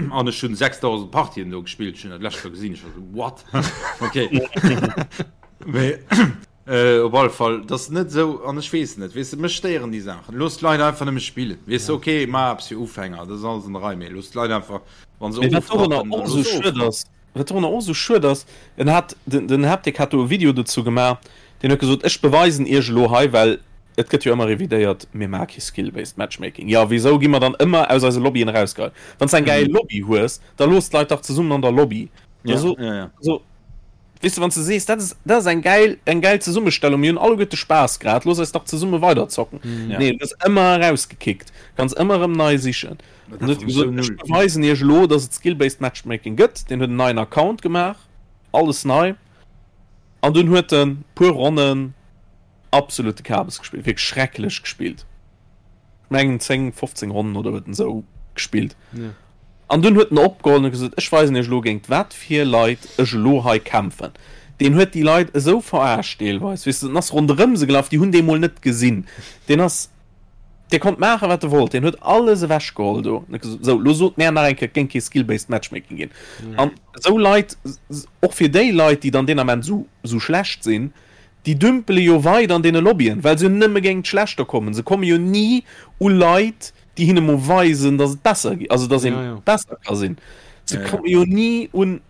[SPEAKER 2] An ech hunn 6000 Partien do gespillt, ech hunn dat lescht Joer gesinn, ech war sou, what? Okay. Mee. Äh, op alle Fall, dat ass net esou, an ech weess net, weess de, mech stéieren déi Saachen. Looss d'Leit einfach nëmme spillen, weess de, okay, maach eppes fir Ufänger, dat ass alles an der Rei, mee looss d'Leit einfach, wa se
[SPEAKER 3] Mee wat dorunner
[SPEAKER 2] ofrappen,
[SPEAKER 3] och
[SPEAKER 2] dann
[SPEAKER 3] esou
[SPEAKER 2] looss se
[SPEAKER 3] schued
[SPEAKER 2] ofrappen.
[SPEAKER 3] ass, wat dorunner och esou schued ass, en hat, den, den Haptic hat do e Video dozou gemaach, deen huet gesot, ech beweisen iech elo hei, well et gëtt jo ëmmer revidéiert, mir maache kee Skill-based Matchmaking. Jo, wisou gi mer dann ëmmer aus eise Lobbyen erausgeheit? Wann s de eng gäil Lobby hues, da looss d'Leit dach zesummen an der Lobby. Da
[SPEAKER 2] Ja,
[SPEAKER 3] so,
[SPEAKER 2] ja, ja.
[SPEAKER 3] also, Weess de, wann s de sees, dat ass, dat ass eng gäil, eng gäil Zesummestellung, mir hunn alleguerte Spaass grad, looss eis dach zesumme weiderzocken.
[SPEAKER 2] Ja.
[SPEAKER 3] Nee, du gëss ëmmer erausgekickt, kanns ëmmer erëm nei sichen.
[SPEAKER 2] Dat
[SPEAKER 3] An huet
[SPEAKER 2] ass
[SPEAKER 3] gesot,
[SPEAKER 2] sou
[SPEAKER 3] ech
[SPEAKER 2] null.
[SPEAKER 3] beweisen iech elo, dass et Skill-based Matchmaking gëtt. Deen huet en neien Account gemaach, alles nei. An dunn huet en puer Ronnen absolute Kabes gespillt, wierklech schrecklech gespillt. Ech mengen 10, 15 Ronnen oder huet en esou gespillt.
[SPEAKER 1] Ja.
[SPEAKER 3] An dunn huet en opgeholl an huet gesot, ech weisen iech elo géint wat fir Leit ech elo hei kämpfen. Deen huet déi Leit esou verarscht deelweis, weess de, en ass ronderëm se gelaf, déi hunn dee mol net gesinn. Deen ass, dee konnt maachen wat e wollt, deen huet alles ewech geholl do. An huet gesot, sou, elo sot mär nach eng Kéier, et géing kee Skill-based Matchmaking ginn. An esou Leit, och fir déi Leit, déi dann deen Ament esou, esou schlecht sinn, Déi dümpele jo weider an deene Lobbyen, well se jo nëmme géint d'Schlechter kommen. Se komme jo ni u Leit, déi hinne mol weisen, dass et besser geet, also dass ee besser ka sinn. Se komme jo ni un,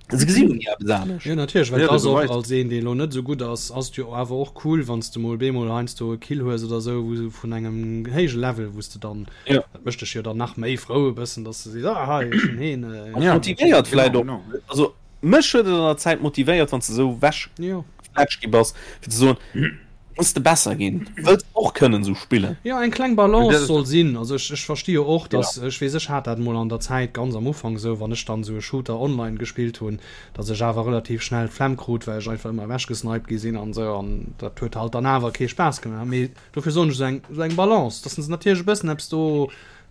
[SPEAKER 3] se gesi jo ni eppes anescht.
[SPEAKER 1] Jo, natierlech, well et ass och, als een, dee elo net esou gutt ass, ass et jo awer och cool, wann s de mol bemol heiansdo e Kill hues oder esou, wou vun engem héije Level, wou s de dann, dat mécht dech jo dann nach méi frou e bëssen, dass de sees, ah hei, ech hunn heen.
[SPEAKER 3] Motivéiert vläicht och, also. Mech huet et an der Zäit motivéiert, wann s de esou wech gefletscht gi bass, fir ze soen, muss de besser ginn, wëlls och kënnen esou spillen.
[SPEAKER 1] Jo, eng kleng Balance soll sinn. Also ech, ech versti jo och, dass, ech weess, ech hat dat emol an der Zäit ganz am Ufank esou, wann ech dann esou e Shooter online gespillt hunn, dass ech awer relativ schnell d'Flemm krut, well ech einfach ëmmer ewechgesniped gi sinn an esou, an dat huet halt dann awer kee Spaass gemaach. Mee dofir soen ech, esou eng, esou eng Balance, dass se natierlech e bëssen eppes do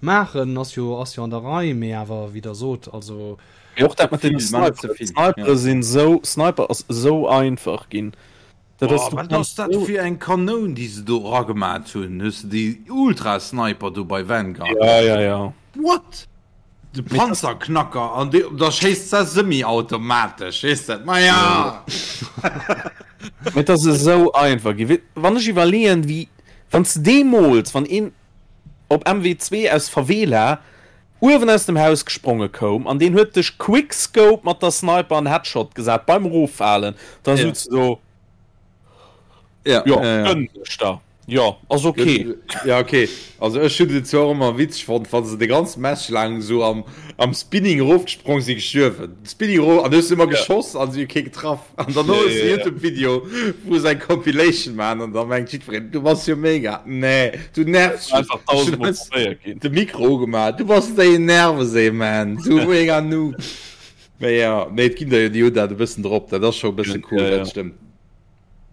[SPEAKER 1] maachen, ass jo, ass jo an der Rei, mee awer, wéi Der sot, also
[SPEAKER 3] Mee och dat mat den Sniperen, Snipere sinn sou, Sniper ass sou einfach ginn.
[SPEAKER 2] Dat ass, du wat ass dat fir eng Kanoun déi se do eragemat hunn? Hues de déi Ultra Sniper do bei Vanguard?
[SPEAKER 3] Ja, ja, ja.
[SPEAKER 2] What? De Panzerknacker an dee da schéisst se semi-automatesch, weess de? Ma ja!
[SPEAKER 3] Mee et ass esou einfach ginn. Wann ech iwwerleeën, wéi wann s de deemools, wann een op MW2 aus Favela uewen aus dem Haus gespronge koum an deen huet dech Quickscope mat der Sniper an Headshot gesat beim Eroffalen, da sutz de do,
[SPEAKER 2] Ja,
[SPEAKER 3] jo,
[SPEAKER 2] ja, ja.
[SPEAKER 3] gönn dech da, jo, ass ok.
[SPEAKER 2] Ja, okay. Also ech hunn et zwar och ëmmer witzeg fonnt, wa se de ganze Match laang esou am, am Spinning erofgesprong sinn, gestuerwen. Spinning erof an du hues ëmmer geschoss an si hu kee getraff. An dann hues de Youtube-Video, wou se eng Compilation maachen an da mengt jiddwereen, du bass jo mega. Nee, du nervs just.
[SPEAKER 3] Einfach tausendmol probéiert ginn.
[SPEAKER 2] De Mikro ugemaach, du bass déi Nervesee, man, du mega Noob. Mee ja, nee, et ginn der jo, déi hunn dat e bëssen drop, dat ass scho e bësse cool, dat stëmmt.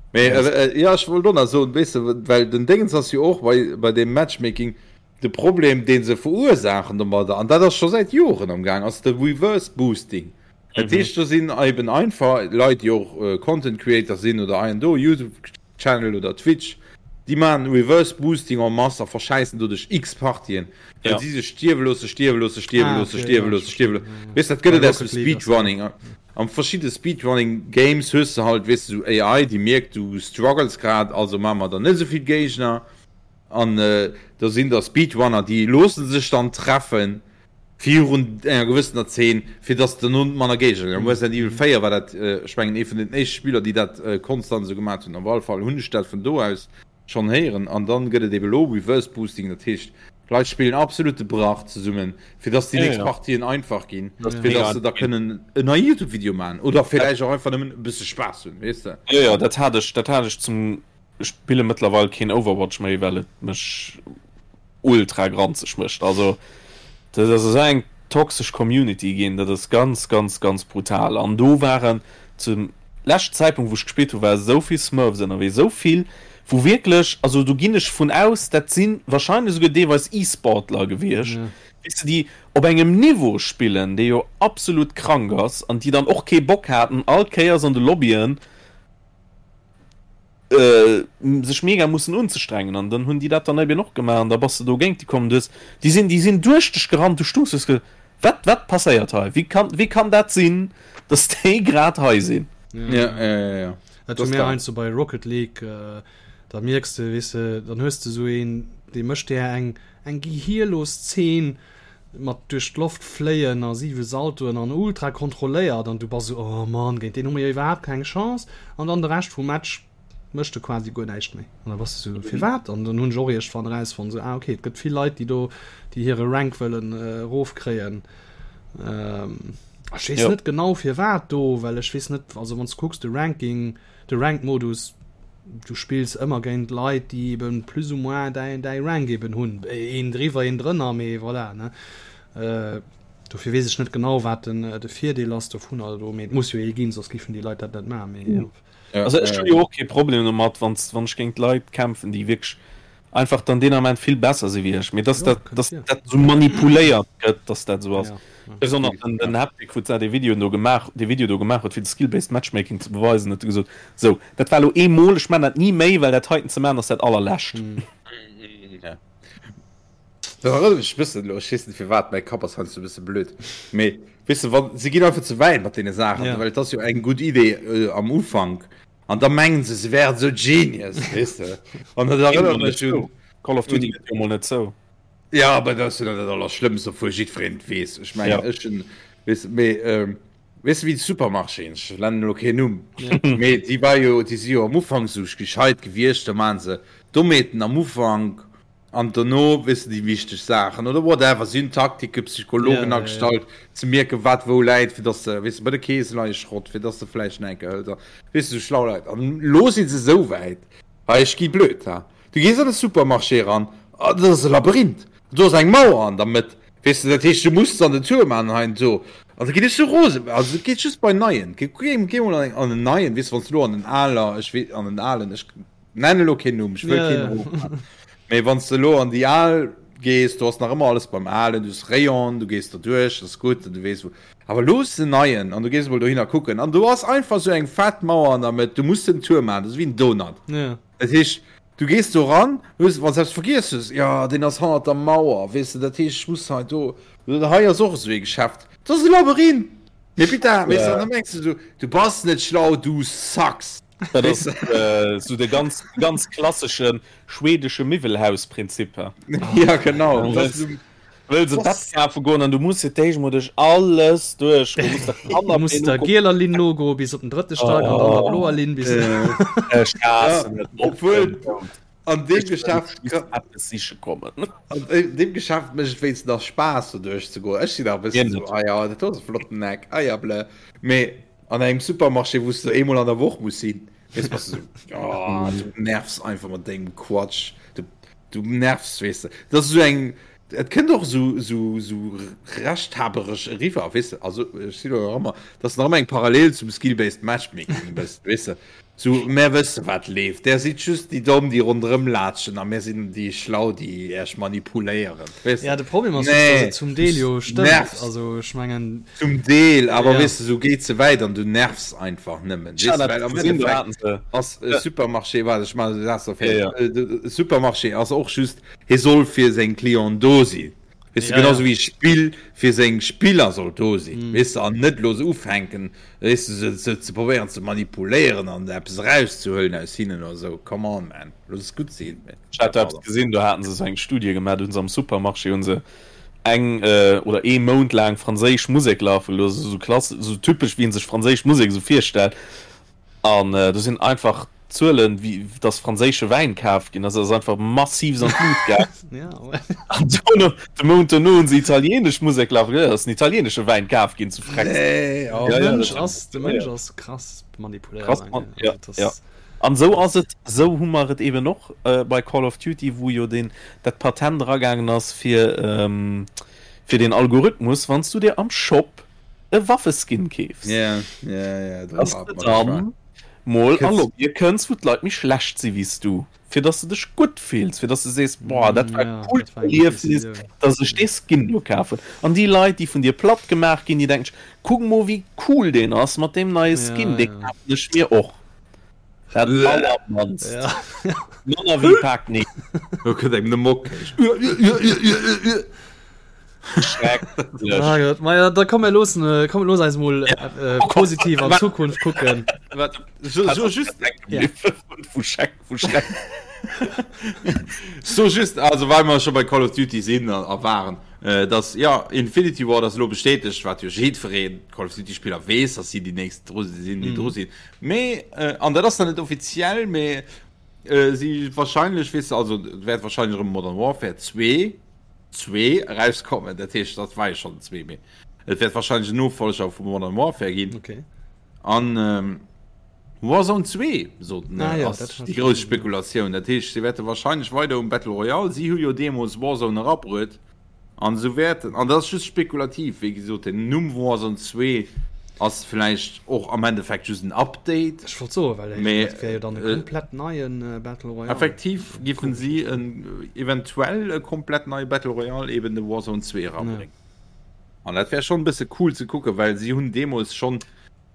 [SPEAKER 2] Mee ja, ech wollt och nach soen, weess de, well den Déngens ass jo och bei, bei deem Matchmaking, de Problem, dee se verursaachen domadder, an dat ass scho säit Joren am Gaang, ass de Reverse Boosting. Dat heescht, do sinn eben einfach Leit, déi och Content Creator sinn oder hei an do Youtube Channel oder Twitch, déi maachen Reverse Boosting en masse a verschäissen doduerch x Partien, well si sech stierwe loosse, stierwe loosse, stierwe loosse, stierwe loosse, stierwe loosse. Weess, dat gëtt et aus dem Speedrunning. Am verschidde Speedrunning Games hues de halt, weess de, sou AI, déi mierkt, du struggles grad, also maache mer der net esou vill Géigner. An da sinn der Speedrunner, déi loosse sech dann treffen virun enger gewëssener Zeen, fir dass derno manner Géigner sinn. Am Resident Evil 4 war dat, ech mengen, ee vun den éischte Spiller, déi dat konstant esou gemaat hunn. Op alle Fall hunn ech dat vun do aus schonn héieren. An dann gëtt et ebe lo Reverse Boosting, dat heescht, d'Leit spillen absolute Brach zesummen, fir dass déi nächst Partien einfach ginn, fir dass se da kënnen en neie Youtube-Video maachen oder villäicht och einfach nëmmen e bësse Spaass hunn, weess de.
[SPEAKER 3] Jo, jo, dat hat ech, dat hat ech zum. spille mëttlerweil keen Overwatch méi, well et mech ultra granzeg mécht. Also dat ass esou eng toxesch Community ginn, dat ass ganz ganz ganz brutal. An do waren zum leschten Zäitpunkt wou ech gespillt hu war esou vill Smurfs ënnerwee, esou vill wou wierklech, also do ginn ech vun aus, dat si wahrscheinlech esouguer deelweis E-Sportler gewiescht, weess de, déi op engem Niveau spillen, dee jo absolut krank ass an déi dann och kee Bock haten all Kéiers an de Lobbyen sech mega mussen unzestrengen an dann hunn déi dat dann eben och gemaach an da bass de do géint déi komm. Du hues, déi sinn, déi sinn duerch dech gerannt, du stungs, du hues ge, wat, wat passéiert hei? Wéi kann, wéi kann dat sinn, dass déi grad hei sinn?
[SPEAKER 2] Ja, ja, ja, ja.
[SPEAKER 1] Dat hu mir heiansdo bei Rocket League, da mierks de, weess de, dann hues de esou een, dee mécht där eng, eng gehierlos Zeen mat duerch d'Loft fléien a siwe Saltoen an ultra kontrolléiert an du bass esou, oh Mann, géint deen hu mir jo iwwerhaapt keng Chance an dann de Rescht vum Match mécht e quasi guer näischt méi an da bass de esou, firwat? An dann hunn ech och iergendwann erausfonnt, esou, ah okay, et gëtt vill Leit, déi do, déi hire Rank wëllen erofkréien. Ech weess net genau firwat do, well ech weess net, also wann s de kucks de Ranking, De Ranked-Modus, du spills ëmmer géint Leit, déi eben plus ou moins däi, däi Rank eben hunn. Een driwwer, een drënner, mee voilà, ne. Dofir weess ech net genau, wat den, de Virdeel ass dovunner elo, mee et muss jo ee ginn, soss géifen déi Leit dat net maachen, mee jo.
[SPEAKER 3] Also ech hunn jo och kee Problem domat, wann, wann ech géint Leit kämpfen, déi wierklech einfach dann deen Ament vill besser si wéi ech, mee dass dat, dass dat esou manipuléiert gëtt, dass dat esou ass. Besonnesch den, den Haptic, wou d'Sa dee Video do gemaach, dee Video do gemaach huet, fir de Skill-Based Matchmaking ze beweisen, huet e gesot, Sou, dat war elo eemol, ech man dat ni méi, well dat heiten ze man ass dat allerlescht.
[SPEAKER 2] Ja. Dat erënnert mech e bëssen elo, ech weess net firwat, mäi Kapp ass heiansdo e bësse blöd, mee weess de, wann, se ginn einfach ze wäit mat deene Saachen,
[SPEAKER 1] Ja.
[SPEAKER 2] well et ass jo eng gutt Idee am Ufank, An da mengen se, se wären esou Genius, weess de. An dat erënnert mech un.
[SPEAKER 3] Call of Duty gëtt jo mol net zou.
[SPEAKER 2] Ja, awer dat ass jo dann dat Allerschlëmmst, obwuel jiddwereen et weess. Ech mengen, ech hunn, weess de, mee, weess de, wéi de Supermarchéen, ech nennen elo keen Numm, mee déi war jo, déi si jo am Ufank esou gescheit gewiescht, da maachen se Dommheeten am Ufank An dono, weess de, déi wichteg Saachen oder whatever, si hunn Taktike, Psychologen agestallt, ze mierken, wat wou läit, fir dass de, weess de, bei de Keese leie Schrott, fir dass de vläicht nach eng Kéier hëls a weess de, sou schlau Leit. An elo si se esou wäit, hei, ech gi blöd, ha, du gees an e Supermarché eran, a dat ass e Labyrinth, do ass eng Mauer an der Mëtt, weess de, dat heescht, du muss dann den Tour maachen hei an do. An da ginn ech sou rosen, also et geet just bei neien, geh mol an en neien, weess de, wann s de elo an en aler, ech weess, an en alen, ech. Nennen elo keen Numm, ech wëll keen erofman. Mee wann s de elo an déi al gees, do ass nach ëmmer alles beim Alen, du hues Rayon, du gees do duerch, dat ass gutt an du weess wou. Awer elo hues de en neien an du gees emol dohinner kucken an do ass einfach esou eng fett Mauer an der Mëtt, du muss den Tour maachen, dat ass wéi en Donut. Dat heescht, du gees do ran, hues, wann s de eppes vergiess hues, jo deen ass hannert der Mauer, weess de, dat heescht ech muss hei do, hei ass och esou ee Geschäft, dat ass e Labyrinth! Mee putain, weess de, an da mengs de esou, du bass net schlau, du sucks!
[SPEAKER 3] Dat ass äh, so de ganz, ganz klassesche schwedesche Miwwelhausprinzip.
[SPEAKER 2] Ja, genau.
[SPEAKER 3] Du wëlls e Bett kafe goen an du muss fir d'éischt mol duerch alles duerch. Du
[SPEAKER 1] musst der Du musst der gieler Linn nogoe bis op den drëtte Stack an dann der bloer Linn bis.
[SPEAKER 3] Ech haassen et.
[SPEAKER 2] Obwuel an deem Geschäft
[SPEAKER 3] eppes siche kommen.
[SPEAKER 2] An deem Geschäft mécht et wéinstens nach Spaass do duerch ze goen. Ech sinn nach e bëssen esou, ah ja, dat do ass e flotten Eck, ah ja, blö. Mee An engem Supermarché, wou s de eemol an der Woch muss sinn, weess, bass de sou, oh, du nervs einfach mat dengem Quatsch. Du, du nervs, weess de. Dat ass esou eng, et kënnt och esou, esou, esou rechthaberesch eriwwer, weess de. Also, ech sinn elo nach ëmmer, dat ass nach ëmmer eng Parallel zum Skill-Based Matchmaking e bëssen, weess de. Sou, mär wësse wat leeft. Där sidd just déi Domm, déi ronderëm laatschen a mär sinn déi Schlau, déi Äech manipuléieren.
[SPEAKER 1] Weess de? Ja, de Problem ass just, dass et zum Deel jo stëmmt. Also ech mengen.
[SPEAKER 2] Zum Deel, awer weess de, sou geet ze wäit an du nervs einfach nëmmen. Weess de, well am Endeffekt ass e Supermarché, waart ech maachen de Saz nach fäerdeg, e Supermarché ass och just, hie soll fir seng Clienten do sinn. Weess de, genauso wéi e Spill fir seng Spiller soll do sinn, weess de, an net elo se ufänken, weess de, se, se ze probéieren ze manipuléieren an eppes erauszehuelen aus hinnen oder esou. Come on, man, looss es gutt sinn.
[SPEAKER 3] Ech hat do eppes gesinn, do haten se esou eng Studie gemaach, do hunn se am Supermarché hunn se eng oder ee Mount laang franséisch Musek lafe gelooss, esou klass, esou typesch wéi een sech franséisch Musek esou virstellt. An do sinn einfach d'Zuelen, wéi dass franséische Wäin kaf ginn ass, ass einfach massiv an d'Lut gaangen. An dono, de Mount dono hunn se italienesch Musek lafe gelooss, ass den italienesche Wäin kaf ginn zu
[SPEAKER 1] Frex. Nee, oh. De Mënsch ass, de Mënsch ass krass manipuléierbar.
[SPEAKER 3] Krass, ja, ja. An esou ass et, esou hu mer et eben och bei Call of Duty, wou jo deen, dat Patent eragaangen ass fir, fir deen Algorithmus, wann s du dir am Shop e Waffeskin keefs, dass de dann mol a Lobbye kënns, wou d'Leit méi schlecht si wéi s du, fir dass de dech gutt fills, fir dass de sees, boah, dat war e coolt Erliefnis, dass ech dee Skin do kaf hunn. An déi Leit, déi vun dir platt gemaach ginn, déi denken sech, kuck mol wéi cool deen ass mat deem neie Skin, dee kafen ech mir och. Dat allermannst. Manner wéi Pak nee.
[SPEAKER 2] Do kënnt engem de Mock.
[SPEAKER 3] Schrecklech.
[SPEAKER 1] Ah Gott, ma ja, da komm mir loossen, äh, komm looss eis mol äh, positiv an Zukunft kucken.
[SPEAKER 2] Wat, so, so just,
[SPEAKER 1] Ja.
[SPEAKER 3] Vu Schreck, vu Schreck.
[SPEAKER 2] so just, also well mer scho bei Call of Duty sinn a, a waren, äh, dass, ja, Infinity Ward ass elo bestätegt, wat jo jiddwereen Call of Duty Spiller weess, dass si déi nächst dru sinn, déi dru sinn. Mee, an dat ass dann net offiziell, mee si wahrscheinlech, weess de, also et wäert wahrscheinlech erëm Modern Warfare 2, 2 erauskommen, dat heescht, dat war jo schonn den 2, mee et wäert wahrscheinlech en Nofolger vu Modern Warfare ginn.
[SPEAKER 1] Okay.
[SPEAKER 2] An Warzone 2, soten,
[SPEAKER 1] ah, ja,
[SPEAKER 2] ass déi grouss Spekulatioun. Dat heescht, si wäerte wahrscheinlech weider um Battle Royale, si hu jo deemools Warzone erabruet, An esou wäerten, an dat ass just spekulativ, wéi gesot, den Numm Warzone 2 ass vläicht och am Endeffekt just en Update.
[SPEAKER 1] Ech wollt soen, well
[SPEAKER 2] Mee,
[SPEAKER 1] dat wär jo dann e komplett neien Battle Royale.
[SPEAKER 2] Effektiv giffen si en eventuell e komplett neie Battle Royale, eben de Warzone 2 erabréngen. An dat wär schonn e bësse cool ze kucken, well si hunn deemools schonn,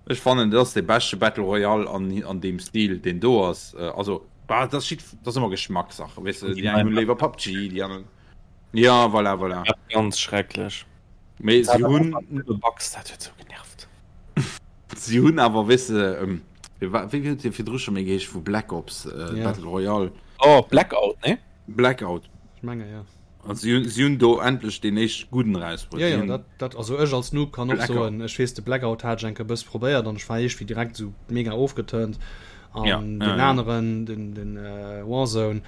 [SPEAKER 2] ech fannen, dat ass dee beschte Battle Royale an, an deem Stil, deen do ass. Also, bah, dat ass jidd, dat ass ëmmer Geschmackssache, weess de, déi eng hunn léiwer PUBG, déi aner. Ja, voilà, voilà.
[SPEAKER 3] Dat ganz schrecklech.
[SPEAKER 2] Mee si hunn.
[SPEAKER 3] Bugs, dat huet sou genervt.
[SPEAKER 2] Si hunn awer, weess de, ähm, wéi huet dee virdru scho méi geheescht vu Black Ops, äh, ja. Battle Royale?
[SPEAKER 3] Oh, Blackout, ne?
[SPEAKER 2] Blackout.
[SPEAKER 1] Ech menge, ja.
[SPEAKER 2] Also, si hunn, si hunn do endlech deen éischt gudden erausbruet.
[SPEAKER 1] Ja, ja, dat, dat, also ech als Noob kann och soen, ech weess, de Blackout hat ech eng Kéier e bësse probéiert an ech war iergendwéi direkt sou mega ofgeturnt. An
[SPEAKER 2] ja,
[SPEAKER 1] den
[SPEAKER 2] ja, ja.
[SPEAKER 1] aneren, den, den äh, Warzone,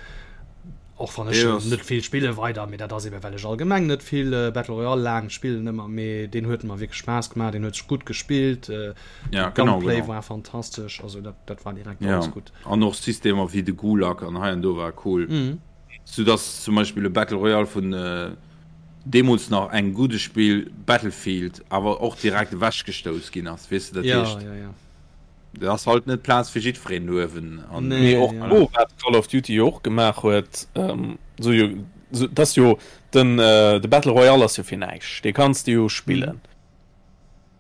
[SPEAKER 1] och wann ech
[SPEAKER 2] Yes.
[SPEAKER 1] net vill spille weider, mee dat ass eben well ech allgemeng net vill äh, Battle Royale laang spillen ëmmer, mee deen huet mer wierklech Spaass gemaach, deen huet sech gutt gespillt, äh,
[SPEAKER 2] Ja, genau,
[SPEAKER 1] Gunplay
[SPEAKER 2] genau.
[SPEAKER 1] war fantastesch, also dat, dat war direkt
[SPEAKER 2] Ja.
[SPEAKER 1] alles gutt.
[SPEAKER 2] An och Systemer wéi de Gulag an hei an do war cool.
[SPEAKER 1] Mhm.
[SPEAKER 2] Sou dass zum Beispill e Battle Royale vun äh, deemools nach engem gudde Spill Battlefield awer och direkt ewechgestouss ginn ass, weess de, dat
[SPEAKER 1] Ja,
[SPEAKER 2] heescht.
[SPEAKER 1] ja, ja.
[SPEAKER 2] Dat ass halt net Plaz fir jiddwereen do uewen.
[SPEAKER 1] An nee,
[SPEAKER 3] Mee och
[SPEAKER 1] ja.
[SPEAKER 3] do, wat Call of Duty jo och gemaach huet, ähm, so jo, so, dat ass jo den, äh, de Battle Royale ass jo fir näischt, dee kanns de jo spillen.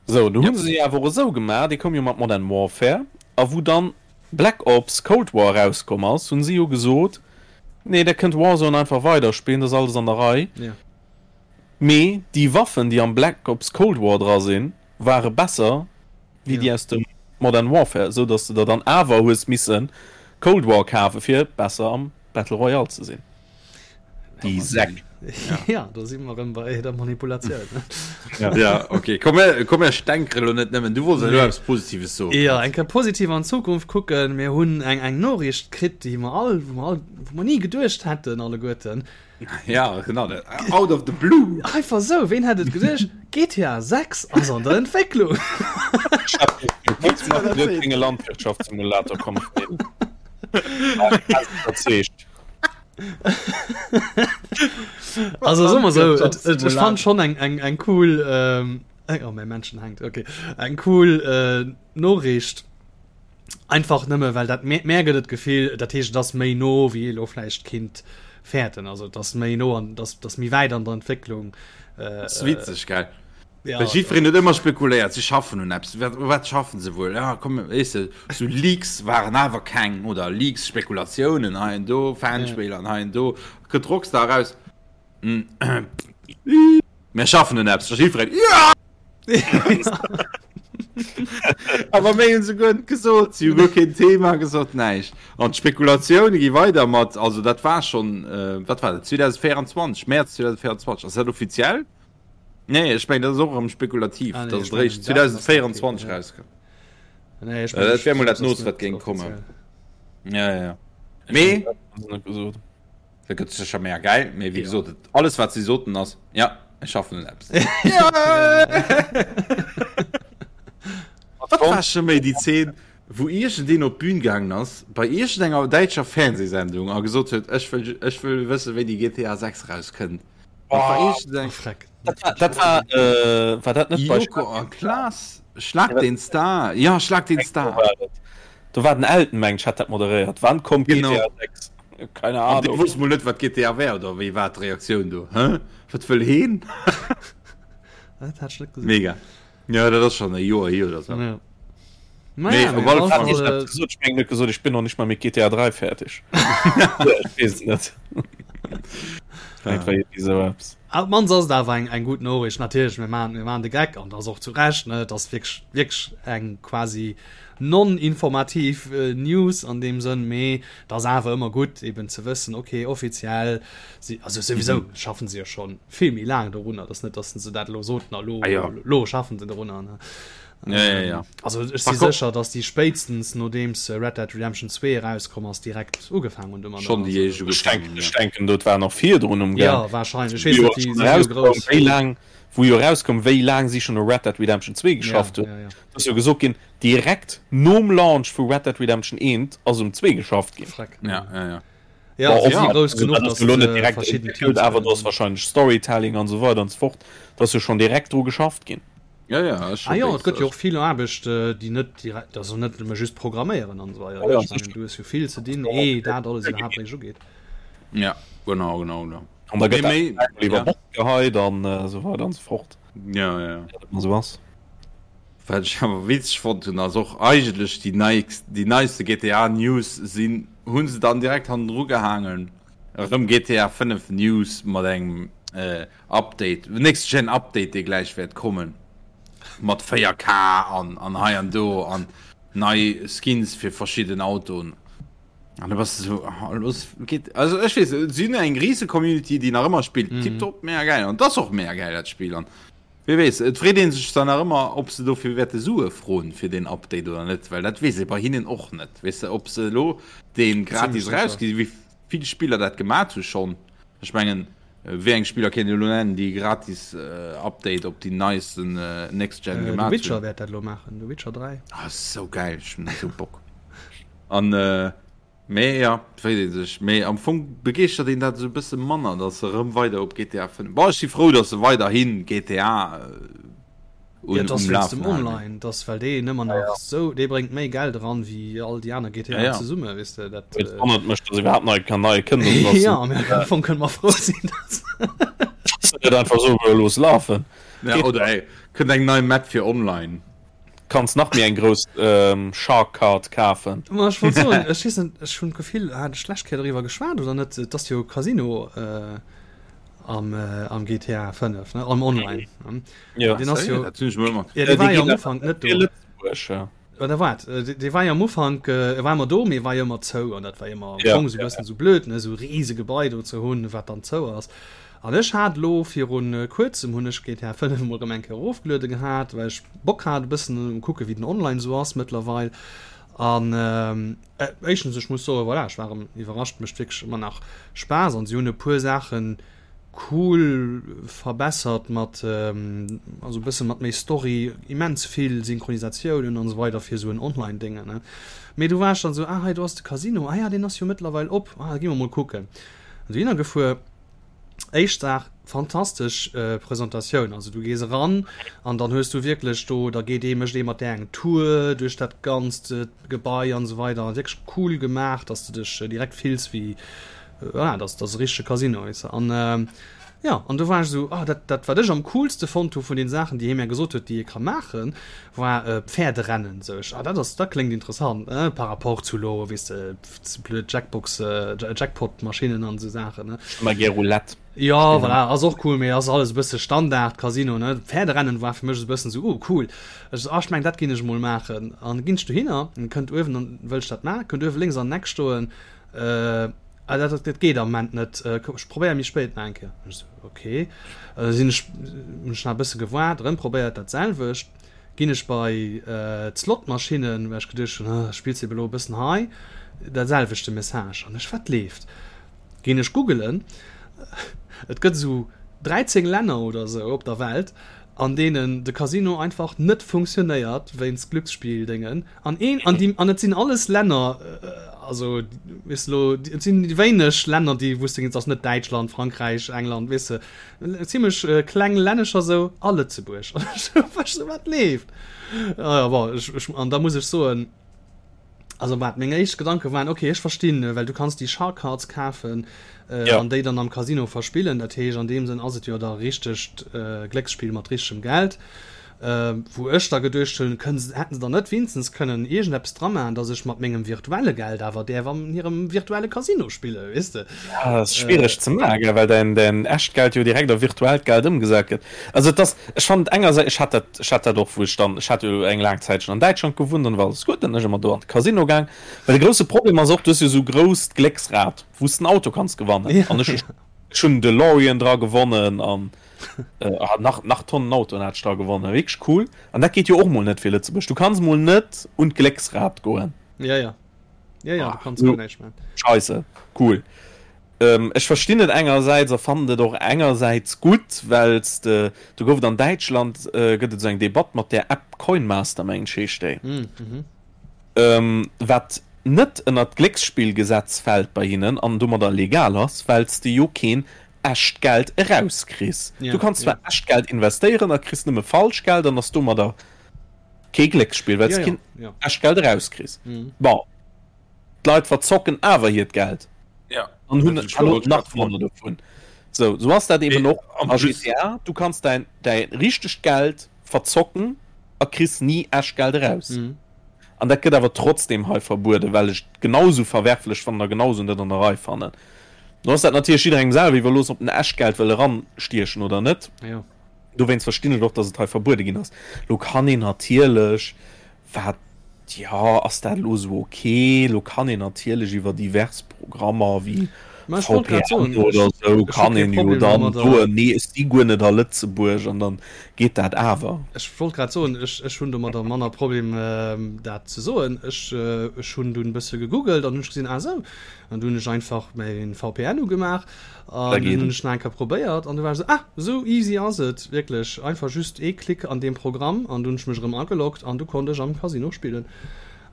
[SPEAKER 1] Mhm.
[SPEAKER 3] Sou, do
[SPEAKER 2] Ja.
[SPEAKER 3] hu se jo awer och esou gemaach, dee koum jo mat Modern Warfare, a wou dann Black Ops Cold War erauskomm ass, hunn si jo gesot, nee, der kënnt Warzone einfach weiderspillen, dat ass alles an der Rei.
[SPEAKER 1] Ja.
[SPEAKER 3] Mee déi Waffen, déi am Black Ops Cold War dra sinn, ware besser wéi déi aus dem Modern Warfare, esou dass de der dann awer hues misse Cold War kafe fir besser am Battle Royale ze sinn. Déi Säck.
[SPEAKER 1] Ja, do si mer erëm bei der Manipulatioun.
[SPEAKER 2] Ja, ja okay. Komm, mir, komm, mir stänkere lo net nëmmen. Du wollts elo eppes Positives soen.
[SPEAKER 1] Ja, eng Kéier positiv an d'Zukunft kucken. Mir hunn eng, eng Noriicht kritt, déi mer all, wou mer all, wou mer ni geduecht hätten alleguerten.
[SPEAKER 2] Ja, genau. Out of the blue.
[SPEAKER 1] Einfach sou, ween hätt et geduecht? GTA 6 ass an der Entwécklung.
[SPEAKER 3] Enge Landwirtschaftssimulator kommen.
[SPEAKER 1] Also soe mer sou, et, et, ech fand schon eng, eng, eng cool, ähm, oh, mäi Männchen hänkt, okay, eng cool äh, Noriicht. Einfach nëmme well dat mär, mär gëtt et d'Gefill, dat heescht et ass méi no wéi ee lo vläicht kinnt fäerten. Also et ass méi no an et ass, et ass méi wäit an der Entwécklung.
[SPEAKER 2] Äh, Ass witzeg, gell?
[SPEAKER 1] Ja,
[SPEAKER 2] Well jiddwereen huet ëmmer spekuléiert, si schaffen un eppes. Wat, u wat schaffen se wuel? Ja, komm, weess de, sou Leaks waren awer keng oder Leaks, Spekulatiounen hei an do, Fanspiller an hei an do. Kënnt Rockstar eraus, Mir schaffen un eppes. Da jiddwereen, Ja! Awer méi hunn se guer net gesot. Si hu guer keen Thema gesot, näischt. An d'Spekulatioune gi weider mat, also dat war schonn, wat war dat, 2024, Mäerz 2024. Ass dat offiziell? Nee, ech mengen, dat ass och erëm spekulativ,
[SPEAKER 1] Ah, nee,
[SPEAKER 2] datt
[SPEAKER 1] ech
[SPEAKER 2] et eréischt
[SPEAKER 1] mengen, dat ass
[SPEAKER 2] 2024
[SPEAKER 1] ja.
[SPEAKER 2] erauskënnt.
[SPEAKER 1] Nee, ech
[SPEAKER 2] Äh,
[SPEAKER 1] mengen,
[SPEAKER 2] dat wär mol dat
[SPEAKER 1] ass
[SPEAKER 2] Noost,
[SPEAKER 1] net
[SPEAKER 2] wat géing kommen.
[SPEAKER 1] offiziell.
[SPEAKER 2] Ja, ja, ja. Mee
[SPEAKER 3] Net gesot.
[SPEAKER 2] Dat gëtt sécher mega gäil, mee wéi
[SPEAKER 1] Ja.
[SPEAKER 2] gesot, et, alles wat si soten ass, ja, ech schaffen un eppes. Wat war scho méi déi Zeen? Wou iergendeen op d'Bün gaangen ass bei iergendenger däitscher Fernsehsendung a gesot huet, ech wëll, ech wëll wëssen, wéini GTA 6 erauskënnt. Dat war iergendeng.
[SPEAKER 1] Freck.
[SPEAKER 3] Dat war, dat war, äh, war dat net bei
[SPEAKER 2] Joko a Klaas, Schlag den Star, ja, Schlag den Star.
[SPEAKER 3] Do war den Elton, mengen ech, hat dat moderéiert. Wann kommt
[SPEAKER 2] Genau.
[SPEAKER 3] GTA 6? Keine
[SPEAKER 2] An dee
[SPEAKER 3] Ahnung.
[SPEAKER 2] wosst mol net, wat GTA wär, oder wéi war d'Reaktioun do? Hä? Wat wëll heen?
[SPEAKER 1] Dat hat ech net gesinn.
[SPEAKER 2] Mega. Ja, dat ass schon e Joer hier oder so.
[SPEAKER 1] Ja.
[SPEAKER 2] Nee,
[SPEAKER 1] Naja,
[SPEAKER 2] op
[SPEAKER 1] mee
[SPEAKER 2] alle
[SPEAKER 1] op
[SPEAKER 2] Fall.
[SPEAKER 1] alle
[SPEAKER 3] Ich
[SPEAKER 1] Fall,
[SPEAKER 3] hab gesot, ich mengen net gesot, ich bin noch nicht mal mit GTA 3 fertig. Ja, ich weess et net. Vielleicht war irgendwie sou eppes.
[SPEAKER 1] Op d'mannst ass et awer eng, eng gutt Noriicht. Natierlech, mir maachen, mir maachen de Geck an dat ass och zu Recht, ne? Et ass wierklech, wierklech eng quasi non-informativ News an deem Sënn, mee et ass awer ëmmer gutt eben ze wëssen, okay, offiziell si, also souwisou schaffen se jo schonn vill méi laang dorunner, et ass net, datt se dat elo soten a lo,
[SPEAKER 2] Ah jo.
[SPEAKER 1] lo schaffen se dorunner, ne?
[SPEAKER 2] Ja, ja, ja.
[SPEAKER 1] Also ech si
[SPEAKER 2] Par contre-
[SPEAKER 1] sécher, datt déi spéitstens nodeems Red Dead Redemption 2 erauskomm ass, direkt ugefaangen hunn domadder.
[SPEAKER 2] Schonn déi éischt
[SPEAKER 3] Ech
[SPEAKER 2] ugefaangen
[SPEAKER 3] denken,
[SPEAKER 2] hunn,
[SPEAKER 3] ech
[SPEAKER 2] ja.
[SPEAKER 3] denken, dat war nach virdrun um Gaang.
[SPEAKER 1] Ja, wahrscheinlech. Ech weess net,
[SPEAKER 3] Wou
[SPEAKER 1] déi
[SPEAKER 3] jo
[SPEAKER 1] si jo
[SPEAKER 3] erauskoum,
[SPEAKER 1] grouss.
[SPEAKER 3] wéi laang, wou jo erauskoum, wéi laang si schonn u Red Dead Redemption 2
[SPEAKER 1] Ja,
[SPEAKER 3] geschafft hunn.
[SPEAKER 1] ja, ja.
[SPEAKER 3] Et ass jo gesot ginn, direkt nom Launch vu Red Dead Redemption 1 ass um 2 geschafft ginn.
[SPEAKER 1] Freck.
[SPEAKER 2] Ja, ja, ja.
[SPEAKER 1] Ja,
[SPEAKER 3] Bon,
[SPEAKER 1] si si
[SPEAKER 3] ja,
[SPEAKER 1] grouss
[SPEAKER 3] also
[SPEAKER 1] genuch,
[SPEAKER 3] dat ass
[SPEAKER 1] datt
[SPEAKER 3] elo net
[SPEAKER 1] se
[SPEAKER 3] direkt
[SPEAKER 1] verschidden
[SPEAKER 3] entwéckelt,
[SPEAKER 1] Teams
[SPEAKER 3] awer do ass
[SPEAKER 1] kënnen.
[SPEAKER 3] wahrscheinlech Storytelling an esou weider an esou fort, do ass jo schonn direkt dru geschafft ginn.
[SPEAKER 2] Ja, ja, ass
[SPEAKER 1] Ah
[SPEAKER 2] scho
[SPEAKER 1] jo, et
[SPEAKER 2] béis.
[SPEAKER 1] gëtt jo och vill Aarbecht, déi net direkt, also net nëmme just programméieren an esou weider,
[SPEAKER 3] Ja,
[SPEAKER 1] ne?
[SPEAKER 3] ja,
[SPEAKER 1] Ech mengen,
[SPEAKER 3] sicher.
[SPEAKER 1] du hues jo vill ze dinn, ee dat alles iwwerhaapt eréischt ugeet.
[SPEAKER 2] Ja, genau, genau, genau.
[SPEAKER 3] An da
[SPEAKER 2] Mee
[SPEAKER 3] gëtt dat
[SPEAKER 2] méi,
[SPEAKER 3] iwwer
[SPEAKER 2] ja.
[SPEAKER 3] Bord geheit an esou weider an esou fort.
[SPEAKER 2] Ja, ja, ja.
[SPEAKER 3] Wéi dat ëmmer esou ass.
[SPEAKER 2] Wat ech awer witzeg fonnt hunn, ass och eigentlech déi neikst, déi neiste GTA News sinn, hu se dann direkt hannendru gehaangen, erëm GTA 5 News mat engem Update, Next Gen Update, dee gläich wäert kommen, mat 4K an an hei an do an nei Skins fir verschidden Autoen. An da bass de sou, ah, los geet, also ech weess, si hunn eng rise Community, déi nach ëmmer spillt, tiptop, mega gäil an et ass och mega gäil dat Spill an Wie weess, et freet ee sech dann nach ëmmer, ob se dofir wäerte Sue froen, fir deen Update oder net, well dat weess ee bei hinnen och net, weess de, ob se elo dee gratis erausginn, wéi vill Spiller dat gemat hu schonn. Ech mengen, wéi eng Spiller kéint een elo nennen, déi e gratis Update op déi neisten Next Gen
[SPEAKER 1] The
[SPEAKER 2] gemat
[SPEAKER 1] Witcher
[SPEAKER 2] hunn?
[SPEAKER 1] wäert dat elo maachen, The Witcher 3.
[SPEAKER 2] Ah, sou gäil, ech hunn esou Bock. An. Mee jo, et freet ee sech. Mee am Fong begeeschtert een dat esou e bësse manner, datt se erëm weider op GTA 5. Bon, ech si frou, datt se weiderhi GTA
[SPEAKER 1] Ja,
[SPEAKER 2] un,
[SPEAKER 1] et ass
[SPEAKER 2] um
[SPEAKER 1] wéinst dem
[SPEAKER 2] Lafen halen.
[SPEAKER 1] Online, et ass well deen ëmmer nach esou, dee bréngt méi Geld eran wéi all déi aner
[SPEAKER 2] Ja,
[SPEAKER 1] GTAen
[SPEAKER 2] ja.
[SPEAKER 1] zesumme, weess de, dat.
[SPEAKER 3] Et wonnert mech, datt iwwerhaapt nei kann nei kënnt, also datt
[SPEAKER 1] Ja, mee am Fong kënne mer frou sinn, datt.
[SPEAKER 3] se net einfach soe looss lafen.
[SPEAKER 2] Ja, oder ey, kënnt eng nei Map fir online.
[SPEAKER 3] Kanns nach méi eng grouss Shark Card kafen.
[SPEAKER 1] Ma ech wollt soen, ech weess net, ech hunn d'Gefill, hat ech d'lescht Kéier doriwwer geschwat oder net, et ass jo e Casino am am GTA 5, ne, am Online.
[SPEAKER 3] Jo.
[SPEAKER 1] Deen ass jo,
[SPEAKER 2] Dat hunn ech mol mat.
[SPEAKER 1] ja, dee war jo am Ufank net do.
[SPEAKER 3] Lëtzebuerg, ja.
[SPEAKER 1] Oder wat? Dee war jo am Ufank, e war ëmmer do, mee e war jo ëmmer zou an dat war ëmmer am
[SPEAKER 3] Ja,
[SPEAKER 1] Fong esou e
[SPEAKER 3] ja,
[SPEAKER 1] bëssen esou blöd, ne, esou e rise Gebai do ze hunn, wat dann zou ass. An ech hat elo virun kuerzem hunn ech GTA 5 emol erëm eng Kéier erofgeluede gehat, well ech Bock hat e bëssen um kucke wéi den Online esou ass mëttlerweil. An éischtens ech muss soen, voilà, ech war erëm iwwerrascht, mécht wierklech ëmmer nach Spaass an si hunn e puer Saachen cool verbessert mat also e bësse mat méi Story, immens vill Synchronisatiounen an esou weider fir esou en Online-Déngen, ne. Mee du war ech dann esou, ah hei do ass de Casino, ah ja deen ass jo mëttlerweil op, ah da gi mer mol kucken. An dohinner gefuer. Éischt Saach, fantastesch Presentatioun. Also du gees eran an dann hues du wierklech do, da geet ee, mécht ee mat där eng Tour duerch dat ganzt Gebai an esou weider. Wierklech cool gemaach, dass de dech direkt fills wéi, voilà, dass dass e richtege Casino, weess de. An jo, an do war ech esou, ah dat dat wat ech am coolste fonnt hu vun den Saachen, déi hie mär gesot huet, déi ee ka maachen, war Pferderennen. Sou ech, ah dat ass, dat kléngt interessant, par rapport zu elo, weess de, blöd Jackbox, Jackpot-Maschinnen an esou Saachen, ne?
[SPEAKER 3] Ech hu mar gär Roulette.
[SPEAKER 1] Jo, voilà, ass och cool, mee ass alles e bësse Standard Casino, ne? Pferderennen war fir mech esou e bëssen esou, oh cool. Ech sou, ah ech mengen dat ginn ech emol maachen. An ginn ech dohinner, an kënnt uewen an, wëll ech dat maachen, kënnt uewe lénks an den Eck stoen, ah dat, dat geet am Moment net, ech probéier méi spéit nach eng Kéier. Ech sou, ok. Sinn ech, hunn ech nach e bësse gewaart, erëm probéiert dat selwecht. Ginn ech bei d'Slotmaschinnen, well ech geduecht hunn, ah, spills ebe lo e bëssen hei, dat selwechte Message. An ech, wat leeft? Ginn ech googelen, et gëtt esou 13 Länner oder esou op der Welt. An deenen de Casino einfach net funktionéiert wéinst Glücksspilldéngen an een an déi an et sinn alles Länner also weess de lo et sinn déi wéineg Länner déi wou s de et ass net Däitschland, Frankräich, England weess de zimmlech kleng Lännecher sou a Lëtzebuerg an ech sou wat leeft? Ah jo bon ech ech an da muss ech soen Also wat meng éischt Gedanke waren, okay ech verstinn, well du kanns déi Shark Cards kafen äh, ja. an déi dann am Casino verspillen. Dat heescht an deem Sënn ass et jo da richtegt äh, Glécksspill mat richtegem Geld. Äh, wou ech da geduecht hunn, kënnen se, hätten se dann net wéinstens kënnen iergendeppes dra maachen, dass ech mat mengem virtuelle Geld awer däerf an hirem virtuelle Casino spillen, weess de?
[SPEAKER 3] Ja, dat ass schwiereg äh, ze maachen, well däin, däin echt Geld jo direkt a virtuellt Geld ëmgesat gëtt. Also et ass, ech fannen et engersäits, ech hat dat, ech hat dat och, wou ech dann, ech hat jo eng laang Zäit schonn an Däitschland gewunnt an da war alles gutt, dann ech ëmmer do an de Casino gaang. Well de grousse Problem ass och, du hues jo esou grousst Glécksrad, wou s de en Auto kanns gewannen. An ech, ech hunn en DeLorean dra gewonnen an nach, nach Tonnen Autoen hat ech dra gewonnen, wierklech cool. An dat geet jo och mol net fir Lëtzebuerg, du kanns mol net un d'Glécksrad goen.
[SPEAKER 1] Ja, ja. Ja, ja, du kanns guer näischt maachen.
[SPEAKER 3] Scheisse, cool. Ech verstinn et engersäits a fannen et och engersäits gutt, well s de, do gouf et an Däitschland, gëtt et esou eng Debatt mat där App Coinmaster, mengen ech heescht déi, wat net ënnert d'Glécksspillgesetz fält bei hinnen an domadder legal ass, well s de jo keen echt Geld erauskriss. Du kanns zwar echt Geld investéieren a kriss nëmme falsch Geld an ass domadder kee Glécksspill, well s de keen echt Geld erauskriss. Bon. D'Leit verzocken awer hiert Geld
[SPEAKER 2] ja.
[SPEAKER 3] an hunn nach manner dovun. So, so ass dat eben och a GTA. Du kanns däin, däi richtegt Geld verzocken a kriss ni echt Geld eraus. Mhm. An dat gëtt awer trotzdem hei verbueden, well ech et genau sou verwerflech fannen a genau sou net an der Rei fannen. Lo ass dat natierlech jidderengem selwer iwwerlooss, ob en echt Geld wëll eranstiechen oder net.
[SPEAKER 1] Ja.
[SPEAKER 3] Dowéinst verstinn ech och, dass et hei verbuede ginn ass. Lo kann een natierlech Wat, jo, ass dat elo esou ok? Elo kann een natierlech iwwer divers Programmer wéi VPN oder esou kann een jo dann soen, nee ech si guer net a Lëtzebuerg an dann geet dat awer.
[SPEAKER 1] Ech wollt grad soen, ech, ech hunn domadder manner Problem dat ze soen. Ech, ech hunn dunn e bësse gegoogelt an hunn ech gesinn, ah esou, an du hunn ech einfach mäin VPN ugemaach An dunn hunn ech nach eng Kéier probéiert an du war ech esou, ah, esou easy ass et wierklech, einfach just ee Klick an deem Programm an du hunn ech mech erëm ageloggt an du konnt ech am Casino spillen.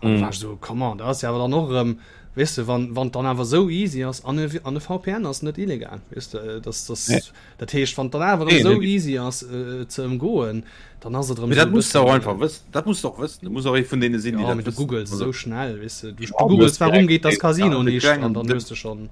[SPEAKER 1] An du war ech esou, come on, dat ass jo awer dann och erëm, weess de, wann wann et dann awer esou easy ass an e an e VPN ass net illegal, weess de, dass dass dat heescht, wann et dann awer erëm esou easy ass et ze ëmgoen, dann ass et erëm
[SPEAKER 2] Mee dat muss de och einfach wëssen, dat muss de och wëssen, du muss och ee vun deene sinn, déi
[SPEAKER 1] dat wëssen. Jo, mee du googles esou schnell, weess de, du googles, warum geht das Casino nicht an dann hues de schonn.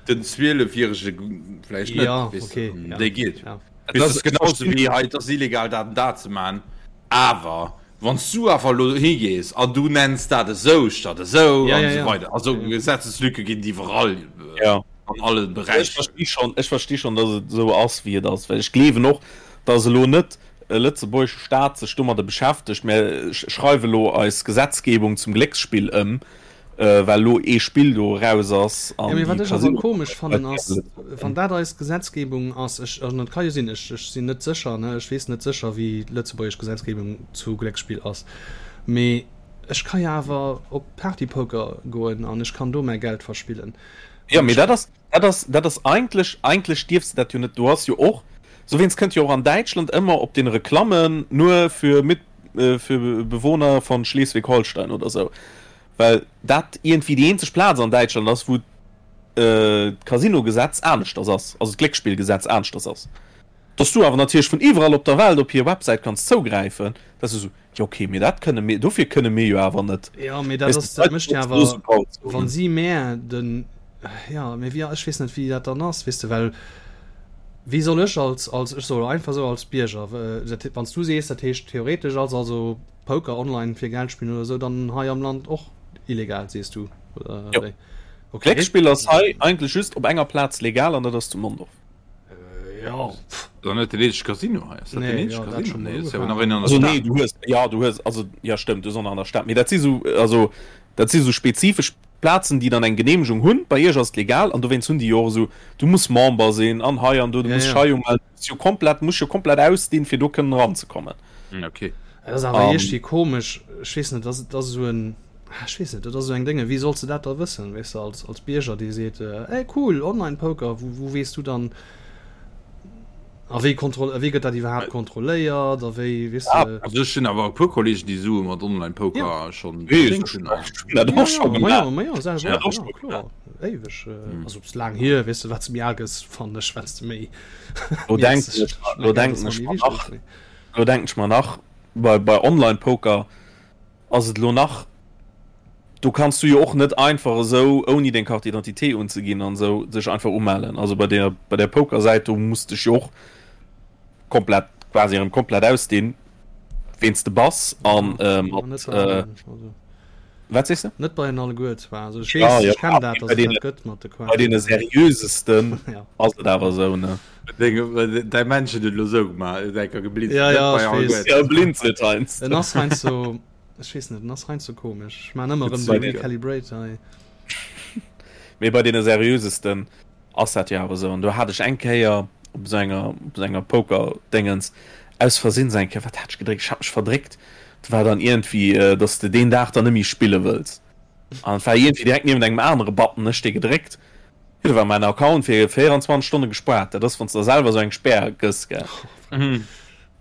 [SPEAKER 2] Den 12 jährege vläicht net,
[SPEAKER 1] ja, okay,
[SPEAKER 2] ja. Dee geet. Ja. Dat ass genauso wéi hei, et ass illegal dat an dat ze man, awer wann s du awer elo higees an du nenns dat esou statt esou
[SPEAKER 1] ja,
[SPEAKER 2] an
[SPEAKER 1] ja,
[SPEAKER 2] esou
[SPEAKER 1] ja.
[SPEAKER 2] weider. Also Gesetzeslücke ginn et iwwerall
[SPEAKER 3] ja.
[SPEAKER 2] an alle
[SPEAKER 3] Ech
[SPEAKER 2] Beräicher.
[SPEAKER 3] versti schonn, ech versti schonn, datt et esou ass wéi et ass, well ech gleewen och, datt elo net e lëtzebuergesche Staat sech domadder beschäftegt, mir schreiwe elo eis Gesetzgebung zum Glécksspill ëm, Well lo ee Spill do eraus ass
[SPEAKER 1] an déi Wat ech awer komesch fannen ass, wann dat eis Gesetzgebung ass, ech, an et ka jo sinn, ech, ech sinn net sécher, ne, ech weess net sécher wéi d'lëtzebuergesch Gesetzgebung zu Glécksspill ass, mee ech ka jo awer op Partypoker goen an ech kann do mäi Geld verspillen.
[SPEAKER 3] Jo, mee dat ass, dat ass, dat ass eigentlech, eigentlech dierfs de dat jo net. Du has jo och, souwéinst kënnt jo och an Däitschland ëmmer op den Reklammen nur für mit, für Bewohner von Schleswig-Holstein oder sou. Well dat iergendwéi déi eenzeg Plaz an Däitschland ass, wou d'Casino-Gesetz aneschters ass, also d'Glécksspillgesetz aneschters ass. Dass du awer natierlech vun iwwerall op der Welt op hir Websäit kanns zougräifen, dat ass esou, jo okay, mee dat kënne mir, dofir kënne mir jo awer net.
[SPEAKER 1] Jo, mee dat ass, dat mécht jo awer, wa si mär den, jo, mee wéi, ech weess net, wéi dat dann ass, weess de, well wéi soll ech als, als, ech soe einfach esou als Bierger, dat, wann s du sees, dat heescht theoretesch ass also Poker online fir Geld spillen oder sou dann hei am Land och illegal sees du oder
[SPEAKER 3] Jo.
[SPEAKER 1] wéi? Okay.
[SPEAKER 3] Glécksspill ass hei eigentlech just op enger Plaz legal an dat ass zu Mondorf.
[SPEAKER 1] Äh, ja. Pff.
[SPEAKER 2] Dann net den eenzege Casino hei. Ass dat
[SPEAKER 1] Nee,
[SPEAKER 2] den eenzege
[SPEAKER 1] ja, dat
[SPEAKER 2] Casino?
[SPEAKER 1] schon
[SPEAKER 2] Nee,
[SPEAKER 1] mal
[SPEAKER 2] ass ja nach
[SPEAKER 1] ugefaangen.
[SPEAKER 2] een an der
[SPEAKER 3] Also nee,
[SPEAKER 2] Stad.
[SPEAKER 3] du hues ja du hues also ja stëmmt, du hues och nach an der Stad, mee dat si sou also dat si sou spezifesch Plazen déi dann eng Geneemegung hunn. Bei iech ass et legal an dowéinst hunn déi jo och esou du muss Member sinn an hei an do, du
[SPEAKER 1] Ja,
[SPEAKER 3] muss
[SPEAKER 1] ja.
[SPEAKER 3] dech hei umellen, du muss jo komplett muss jo komplett ausdinn fir do kënnen eranzekommen.
[SPEAKER 2] Hm, okay.
[SPEAKER 1] Dat ass awer
[SPEAKER 3] An
[SPEAKER 1] iergdwi komesch, ech weess net, dat ass esou en, ech weess net, dat ass esou eng Dénge, wéi solls de dat da wëssen, weess de, als, als Bierger, dee seet, ey cool, Online-Poker, wou, wou weess du dann? A wéi kontroll wéi gëtt dat iwwerhaapt kontrolléiert a wéi weess
[SPEAKER 2] de. Ah, also ech hunn awer e puer Kollegen, déi Sue mat Online-Poker ja. schonn
[SPEAKER 3] verdéngt hunn. Dat och scho
[SPEAKER 1] gemaach. Ma jo, selwer och, ja, kloer. Éiweg. Also ass laang hier, weess de, wat s de méi al gëss, fannen ech, wat s de méi.
[SPEAKER 3] Lo denken ech, lo denken ech mer nach, lo denken ech mer nach, bei, bei Online-Poker ass et lo nach, do kanns du jo och net einfach esou ouni deng Carte d'identité unzeginn an esou dech einfach umellen. Also bei der bei der Pokersäit do muss dech jo och komplett quasi erëm komplett ausdinn ween s de bass an äh, mat äh, wat sees de?
[SPEAKER 1] Net bei den alleguer zwar, also ech weess, ja, ja, ech kennen dat,
[SPEAKER 3] dass et dat gëtt mat de Bei deene seriösesten ja. ass et awer esou ne.
[SPEAKER 2] Däi Männchen huet elo sou gemaach, huet enker
[SPEAKER 1] geblinzelt. Ja, ja, ech weess.
[SPEAKER 3] Ja, blinzelt heiansdo.
[SPEAKER 1] En ass heiansdo, ech weess net, en ass heiansdo komesch. Ech maan ëmmer erëm de Recalibrate hei.
[SPEAKER 3] Mee bei deene seriösesten ass dat jo awer sou. An do hat ech eng Kéier op esou enger, op esou enger Poker-Déngens aus Versinn sou eng Kéier, wat hat ech gedréckt? Ech hat mech verdréckt. Do war dann iergendwéi, dass de deen Dag dann net méi spille wëlls. An et war iergendwéi direkt niewent engem anere Button, ech dee gedréckt. Jo, do war mäin Account fir 24 Stonne gespaart. Dat ass, wann s de der selwer esou eng Spär gëss, gell.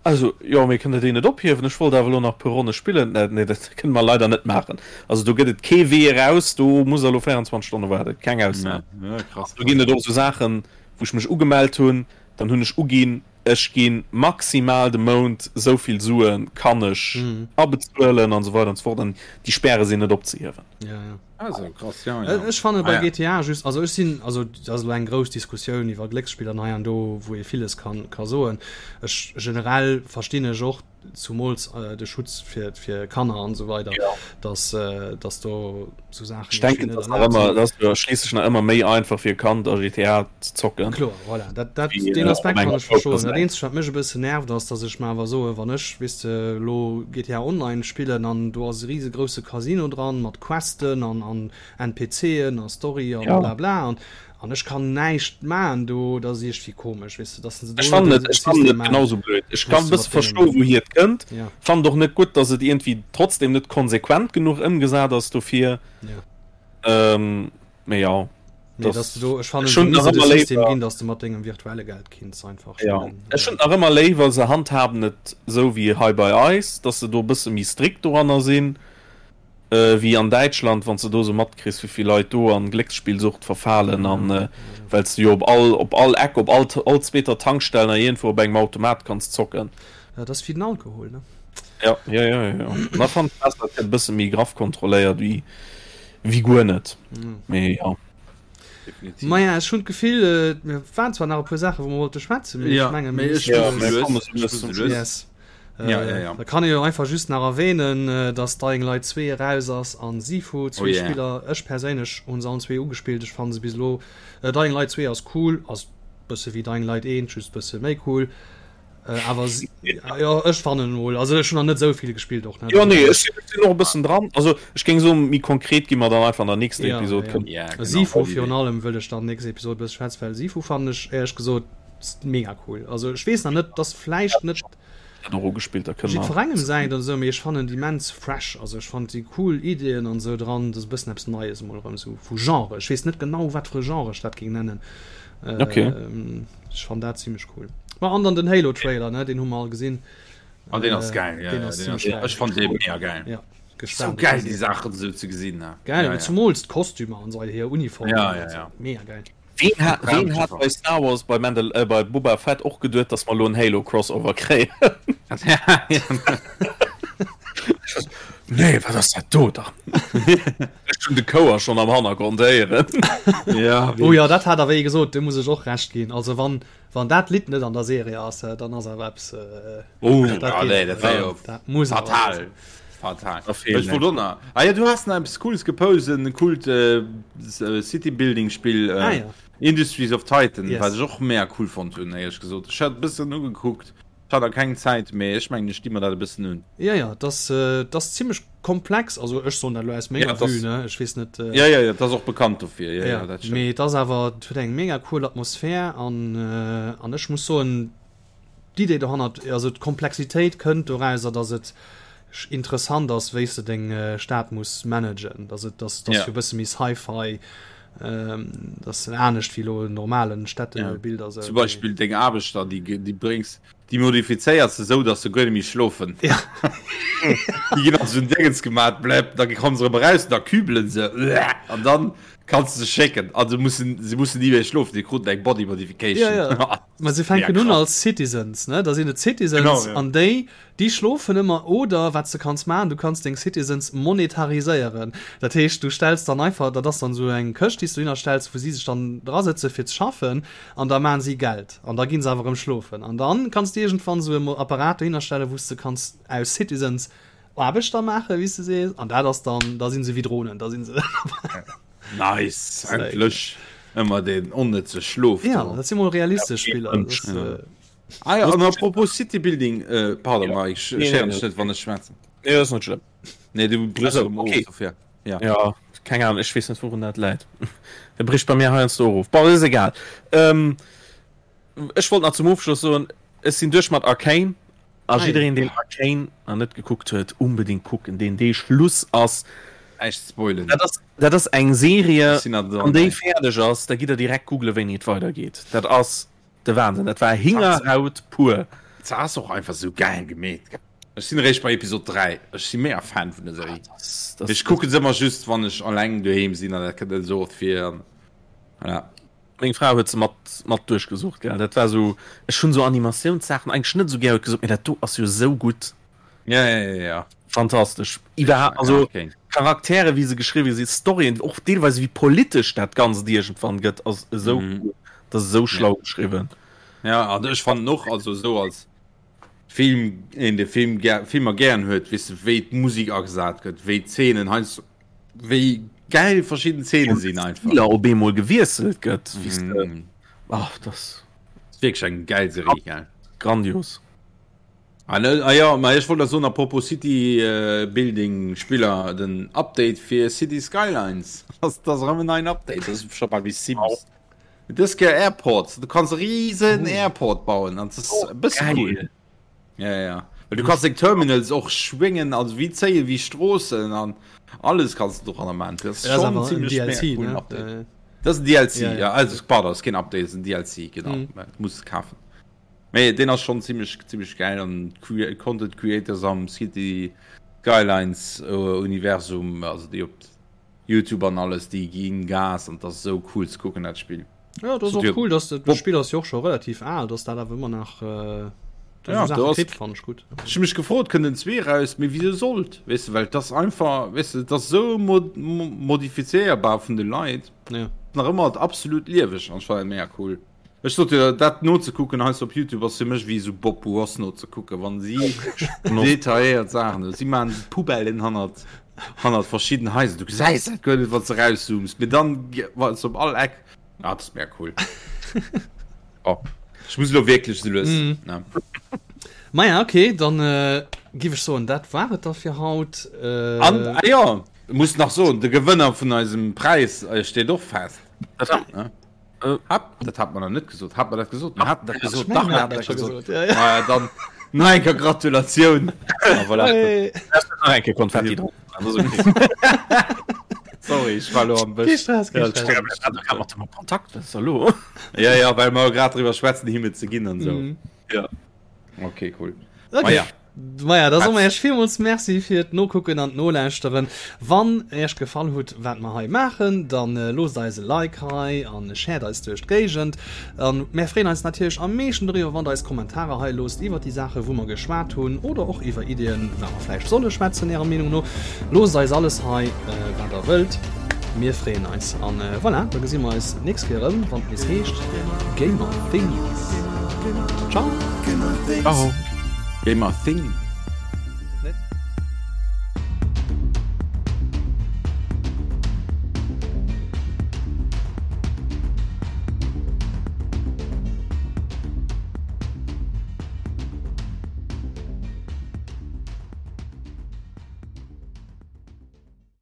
[SPEAKER 3] Also, jo, mee kënnt der déi net ophiewen? Ech wollt awer elo nach e puer Ronne spillen. Nee, dat kënne mer leider net maachen. Also, do gëtt et kee Wee eraus. Do musst der elo 24 Stonne waarden. Keng Ausnam. Do ginn et och esou Saachen, wou ech mech ugemellt hunn, dann hunn ech uginn, ech gi maximal de Mount esou vill Sue kann ech abezuelen an esou weider an esou fort. An déi Späre sinn net opzehiewen.
[SPEAKER 1] Ja, ja.
[SPEAKER 2] Also, krass, ja, ja.
[SPEAKER 1] Ech fanne bei ah, ja. GTA just also ech sinn also dat ass elo eng grouss Diskussioun iwwer Glécksspiller an hei an do wou ee villes kann ka soen. Ech generell verstinn ech och zumools äh, de Schutz fir fir Kanner an esou weider ja. dass äh, dass do sou Saachen
[SPEAKER 3] Ech denken dat ass nach ëmmer dat ass jo schliisslech nach ëmmer méi einfach fir e Kand a GTA ze zocken.
[SPEAKER 1] Kloer, voilà. Dat, dat, wéi, den äh, Aspekt kann ech verstoen. Dat eenzegt wat mech e bëssen nervt ass, dass ech mer awer soe wann ech weess de lo GTA Online spillen an do ass e riesegrousse Casino dran mat Questen an an NPCen a Story an ja. bla bla an an ech kann näischt maachen do, dat ass iergendwéi komesch weess de, dass se do
[SPEAKER 3] Ech fannen et, ech fannen et genauso blöd. Ech kann e bësse verstoen, wouhier et kënnt.
[SPEAKER 1] Ja.
[SPEAKER 3] Fannen et och net gutt, dass et iergendwéi trotzdem net konsequent genuch ëmgesat ass dofir.
[SPEAKER 1] Ja.
[SPEAKER 3] Ähm, mee ja.
[SPEAKER 1] Nee, dass du do, ech fannen, se misst et e System ginn, dass du mat dengem virtuelle Geld kinns einfach
[SPEAKER 3] spillen. Ja, ech hunn nach ëmmer léiwer, se handhaben et esou wéi hei bei eis, dass se do e bësse méi strikt doranner sinn, wéi an Däitschland, wann s de do esou matkriss, wéi vill Leit do an Glécksspillsucht verfalen an well s de jo op all, op all Eck, op all, all zweeter Tankstell nach iergendwou op engem Automat kanns zocken.
[SPEAKER 1] Dat ass wéi den Alkohol, ne?
[SPEAKER 3] Ja, ja, ja, ja. Da fannen ech besser, et gëtt e bësse méi graff kontrolléiert wéi. Wéi guer net.
[SPEAKER 1] Mm.
[SPEAKER 3] Mee ja.
[SPEAKER 2] Definitiv.
[SPEAKER 1] Maja, ech hunn d'Gefill, äh, mir waren zwar nach e puer Saachen, wou mer wollte schwätzen, mee
[SPEAKER 2] Ja,
[SPEAKER 1] ech mengen,
[SPEAKER 2] mee
[SPEAKER 1] mir
[SPEAKER 2] ech
[SPEAKER 1] müssen
[SPEAKER 3] Ja,
[SPEAKER 2] muss
[SPEAKER 3] mir
[SPEAKER 2] lues.
[SPEAKER 3] kommen so
[SPEAKER 2] Ech
[SPEAKER 3] lues
[SPEAKER 2] muss
[SPEAKER 3] zum
[SPEAKER 2] lues.
[SPEAKER 3] Schluss.
[SPEAKER 1] Yes. Äh,
[SPEAKER 2] Ja, ja, ja.
[SPEAKER 1] Da kann ee jo einfach just nach erwähnen, äh, dass Dying Light 2 eraus ass an Sifu,
[SPEAKER 2] Oh
[SPEAKER 1] zwee
[SPEAKER 2] yeah.
[SPEAKER 1] Spiller. Ech perséinlech hunn se allen zwee ugespillt. Ech fannen se bis elo, äh, Dying Light 2 ass cool, ass bësse wéi Dying Light 1, just bësse méi cool. Äh, awer ja, ech fannen mol also ech hun nach net esou vill gespillt och
[SPEAKER 3] net. Jo nee ech sinn och e bëssen dran also ech géing soen méi konkret gi mer dann einfach an der nächster
[SPEAKER 1] ja,
[SPEAKER 3] Episode
[SPEAKER 1] ja.
[SPEAKER 3] kënnen.
[SPEAKER 2] Ja, genau,
[SPEAKER 1] Sifu virun allem wëll ech dann nächst Episode bësse schwätzen well Sifu fannen ech éierlech gesot mega cool also ech weess nach net dass vläicht net
[SPEAKER 3] dat och ugespillt da kënne mer
[SPEAKER 1] jiddwerengem säint oder esou mee ech fannen déi immens fresh also ech fannen si cool Ideeën an esou dran dat ass e bëssen eppes Neies emol erëm esou vu Genre ech weess net genau wat fir e Genre ech dat géing nennen
[SPEAKER 3] okay.
[SPEAKER 1] Ech fann dat zimmlech cool. Ma an dann den Halo Trailer ne den hu mer all gesinn.
[SPEAKER 2] An den ass geil
[SPEAKER 1] ja, den ass zimmlech geil.
[SPEAKER 2] Ech fand dee mega geil.
[SPEAKER 1] Ja
[SPEAKER 2] gespannt. So geil déi Saachen esou ze gesinn ne.
[SPEAKER 1] Geil
[SPEAKER 2] ja, ja.
[SPEAKER 1] zumools d'Kostümer an esou hir Uniform.
[SPEAKER 2] Ja, ja, ja.
[SPEAKER 1] Mega geil.
[SPEAKER 3] Ween hat, ween hat bei Star Wars bei Mandal äh, bei Boba Fett och geduet, dass mer elo en Halo Crossover kréien? Nee, wat ass dat do dann? Ech hunn de Chouer schonn am Hannergrond héieren.
[SPEAKER 2] Ja,
[SPEAKER 1] oh ja, dat hat der wéi gesot, do muss ech och Recht ginn. Also wann, wann dat Lidd net an der Serie ass, äh, dann ass awer eppes. Äh,
[SPEAKER 2] oh,
[SPEAKER 1] dat
[SPEAKER 2] ah,
[SPEAKER 1] geet
[SPEAKER 2] nee, dat wär jo
[SPEAKER 1] dat muss awer
[SPEAKER 2] fatal.
[SPEAKER 1] sinn.
[SPEAKER 2] Fatal.
[SPEAKER 3] Da fehlen
[SPEAKER 2] Ech wollt och nach. Ah ja, du has nach eppes Cooles gepost, en coolt äh, City-Building-Spill, äh,
[SPEAKER 1] Ah, ja.
[SPEAKER 2] Industries of Titan,
[SPEAKER 1] Yes.
[SPEAKER 2] wat ech och mega cool fonnt hunn, éierlech gesot. Ech hat e bëssen ugekuckt. Ech hat nach keng Zäit, mee ech mengen ech di mer dat e bëssen un.
[SPEAKER 1] Ja, ja, dat ass, dat ass zimmlech komplex, also ech soen dat elo aus menger
[SPEAKER 2] Ja,
[SPEAKER 1] Vue, ne, ech weess net.
[SPEAKER 2] Ja, ja, ja, dat ass och bekannt dofir, ja, ja, dat
[SPEAKER 1] stimmt. Mee et ass awer, et huet eng mega cool Atmosphär an, an ech muss soen, d'Idee dohannert, also d'Komplexitéit kënnt dorauser, datt et interessant ass, wéi s de deng Stad muss managen, datt et, datt, datt jo e bësse méi Sci-Fi. Dat ass anescht wéi elo en normalen Städtebild
[SPEAKER 2] a sou. Zum Beispill deng Aarbechter, déi déi bréngs, déi modifizéiers de sou, datt se guer net méi schlofen.
[SPEAKER 1] Ja.
[SPEAKER 2] Déi ginn an esou en Déngens gemat, bläpp, da komme se erëm eraus, da kübelen se, an dann kanns de se schécken. A se mussen, se mussen ni méi schlofen, déi kruten eng Body Modification.
[SPEAKER 1] Ja, ja. Ma se fänken un als Citizens, ne? Da sinn et Citizens,
[SPEAKER 2] Genau, ja.
[SPEAKER 1] an déi Déi schlofen ëmmer oder wat s de kanns maachen, du kanns deng Citizens monetariséieren. Dat heescht, du stells dann einfach, dat ass dann esou eng Këscht, déi s du dohinner stells, wou si sech dann drasëtze fir ze schaffen an da maachen si Geld an da gi se awer erëm schlofen. An dann kanns de iergendwann esou e Apparat dohinner stellen, wou s de kanns aus Citizens Aarbechter maachen, wéi s de sees, an dat ass dann, da si se wéi Dronen, da si se.
[SPEAKER 2] Nice, endlech ëmmer deen onnëtze Schlof
[SPEAKER 1] do. Jo, dat si mol realistesch Spiller.
[SPEAKER 2] Ah ja, an apropos City Building, äh, pardon, ja. Mike, ich nee, nee, net, wann ech schwätzen.
[SPEAKER 3] Nee, das ist net schlimm.
[SPEAKER 2] Nee, du brichst
[SPEAKER 3] also, okay. of, ja. ja. Keng Ahnung, ech weess net wourun dat läit. Der bricht bei mir heiansdo och of. Bon, ist egal. Ähm, ech wollt nach zum Ofschluss soen, ech sinn duerch mat Arcane. A jiddereen, deen Arcane nach net gekuckt huet, unbedingt kucken, deen dee Schluss ass.
[SPEAKER 2] Näischt spoilen.
[SPEAKER 3] Dat ass, dat ass eng Serie, wann déi fäerdeg ass, da gitt der direkt googlen, wéini et weidergeet. Dat ass De Wahnsinn, dat war Hingerhaut pur.
[SPEAKER 2] Se ass och einfach sou gäil gemeet. Ech sinn eréischt bei Episode 3. Ech si mega Fan vun der Serie. Ech kucken se ëmmer just wann ech alleng doheem sinn an dat kënnt net esou oft vir. Voilà.
[SPEAKER 3] Meng Fra huet se mat mat duerchgesucht gell. Dat war sou, ech hunn sou Animatiounssaachen eigentlech net sou gär, huet gesot, mee dat do ass jo sou gutt.
[SPEAKER 2] Ja, ja, ja, ja.
[SPEAKER 3] Fantastesch. Iwwerhaapt, also Charaktere wéi se geschriwwe sinn, Storyen, och deelweis wéi politesch dat Ganzt iergendwann gëtt, ass esou mm. cool. Dat ass esou schlau ja. geschriwwen.
[SPEAKER 2] Ja, an ech fannen och, also esou als Film, een de Film ger Filmer gären huet, weess de, wéi d'Musek agesat gëtt, wéi d'Zeenen heiansdo, wéi gäil verschidden Zeene sinn einfach.
[SPEAKER 3] Spiller op eemol gewiesselt gëtt, weess de. Mm. Ach, das.
[SPEAKER 2] Ass wierklech eng gäil Serie, gell?
[SPEAKER 3] Grandios.
[SPEAKER 2] Ah, ne, ah ja, ma ech wollt nach soen, apropos City äh, Building Spiller, den Update fir City Skylines. Das, das ass erëm en neien Update, das ist scho bal wéi Sims. Dës Kéier Airports, du kanns e riesen Airport bauen an das ist e bësse cool. Ja, ja, ja. Well du kanns deng Terminals och schwéngen, also wéi zéien, wéi Stroossen an alles kanns du doranner maachen. Das ist
[SPEAKER 1] Das ass
[SPEAKER 2] schon
[SPEAKER 1] awer en
[SPEAKER 2] ziemlech mega
[SPEAKER 1] DLC,
[SPEAKER 2] coolen
[SPEAKER 1] ne?
[SPEAKER 2] Update.
[SPEAKER 1] Äh,
[SPEAKER 2] Das ist ein DLC,
[SPEAKER 1] Ja, ja.
[SPEAKER 2] ja, also pardon, das ist kein Update, das ist ein DLC, genau.
[SPEAKER 1] Mhm.
[SPEAKER 2] Du musst es kaufen. Mee deen ass schon ziemlech ziemlech geil an Content Creators am City Skylines Universum, also déi op Youtube an alles, déi ginn Gas an dat ass esou cool ze kucken dat Spill.
[SPEAKER 1] Ja, dat ass och cool, dass dat Spill ass jo och scho relativ al, dass dat awer ëmmer nach äh,
[SPEAKER 2] ja,
[SPEAKER 1] Sache kritt, fand ech gutt.
[SPEAKER 2] Ech hu mech gefrot, kënnt en 2 raus, mee wisou sollt, weess de, well et ass einfach, weess de, et ass esou mod modifizéierbar vun de Leit,
[SPEAKER 1] ja.
[SPEAKER 2] nach ëmmer absolut lieweg an ech fannen dat mega cool. Ech sot jo, dat nozekucken heiansdo op Youtube ass fir mech wéi esou Bob Ross nozekucken, wann si detailléiert Saachen hunn. Si maachen Poubellen hannert, hannert verschidden Haiser. Du gesäis dat guer net, wann s de erauszooms, mee dann wa s op all Eck. Ah, dat ass mega cool. Oh, ech muss elo wierklech esou lues, ne?
[SPEAKER 1] Maja, okay, dann giff ech soen, dat war et da fir haut.
[SPEAKER 2] An, ah jo, muss nach soen, de Gewënner vun eisem Präis steet och fest.
[SPEAKER 3] Ne?
[SPEAKER 2] Hab, dat hat man noch net gesot. Hat man dat gesot? Man hat dat gesot.
[SPEAKER 1] Dach, man hat dat gesot.
[SPEAKER 2] Ja, ja. Ah, ja, dann nach eng Kéier Gratulatioun. Ah, voilà.
[SPEAKER 1] Hey.
[SPEAKER 3] Nach eng Kéier Konfetti dran. Das ist okay.
[SPEAKER 2] Sorry, ich war lo am
[SPEAKER 1] Bësch. Kee Stress, kee Stress.
[SPEAKER 3] Ja, da mat dem Kontakt, was ist da lo?
[SPEAKER 2] Ja, ja, well mer grad drüber schwätzen, him et ze ginn an so.
[SPEAKER 1] Mhm.
[SPEAKER 3] Ja.
[SPEAKER 2] Okay, cool.
[SPEAKER 1] Okay.
[SPEAKER 2] Ma ja.
[SPEAKER 1] Maja, da soe mer iech villmools Merci fir d'Nokucken an d'Nolauschteren. Wann iech gefall hutt, wat mer hei maachen, da loosst eis e Like hei an shared eis duerch d'Géigend. An mär freeën eis natierlech am meeschten doriwwer, wann der eis Kommentarer hei loosst iwwer déi Saache wou mer geschwat hunn oder och iwwer Iddien, wat mer vläicht solle schwätzen ärer Meenung no. Loosst eis alles hei, wat der wëllt. Mir freeën eis. An voilà, da gesi mer eis d'nächst Kéier erëm, wann et nees heescht Gamer Things. Ciao!
[SPEAKER 3] Ciao!
[SPEAKER 2] Gamer Things.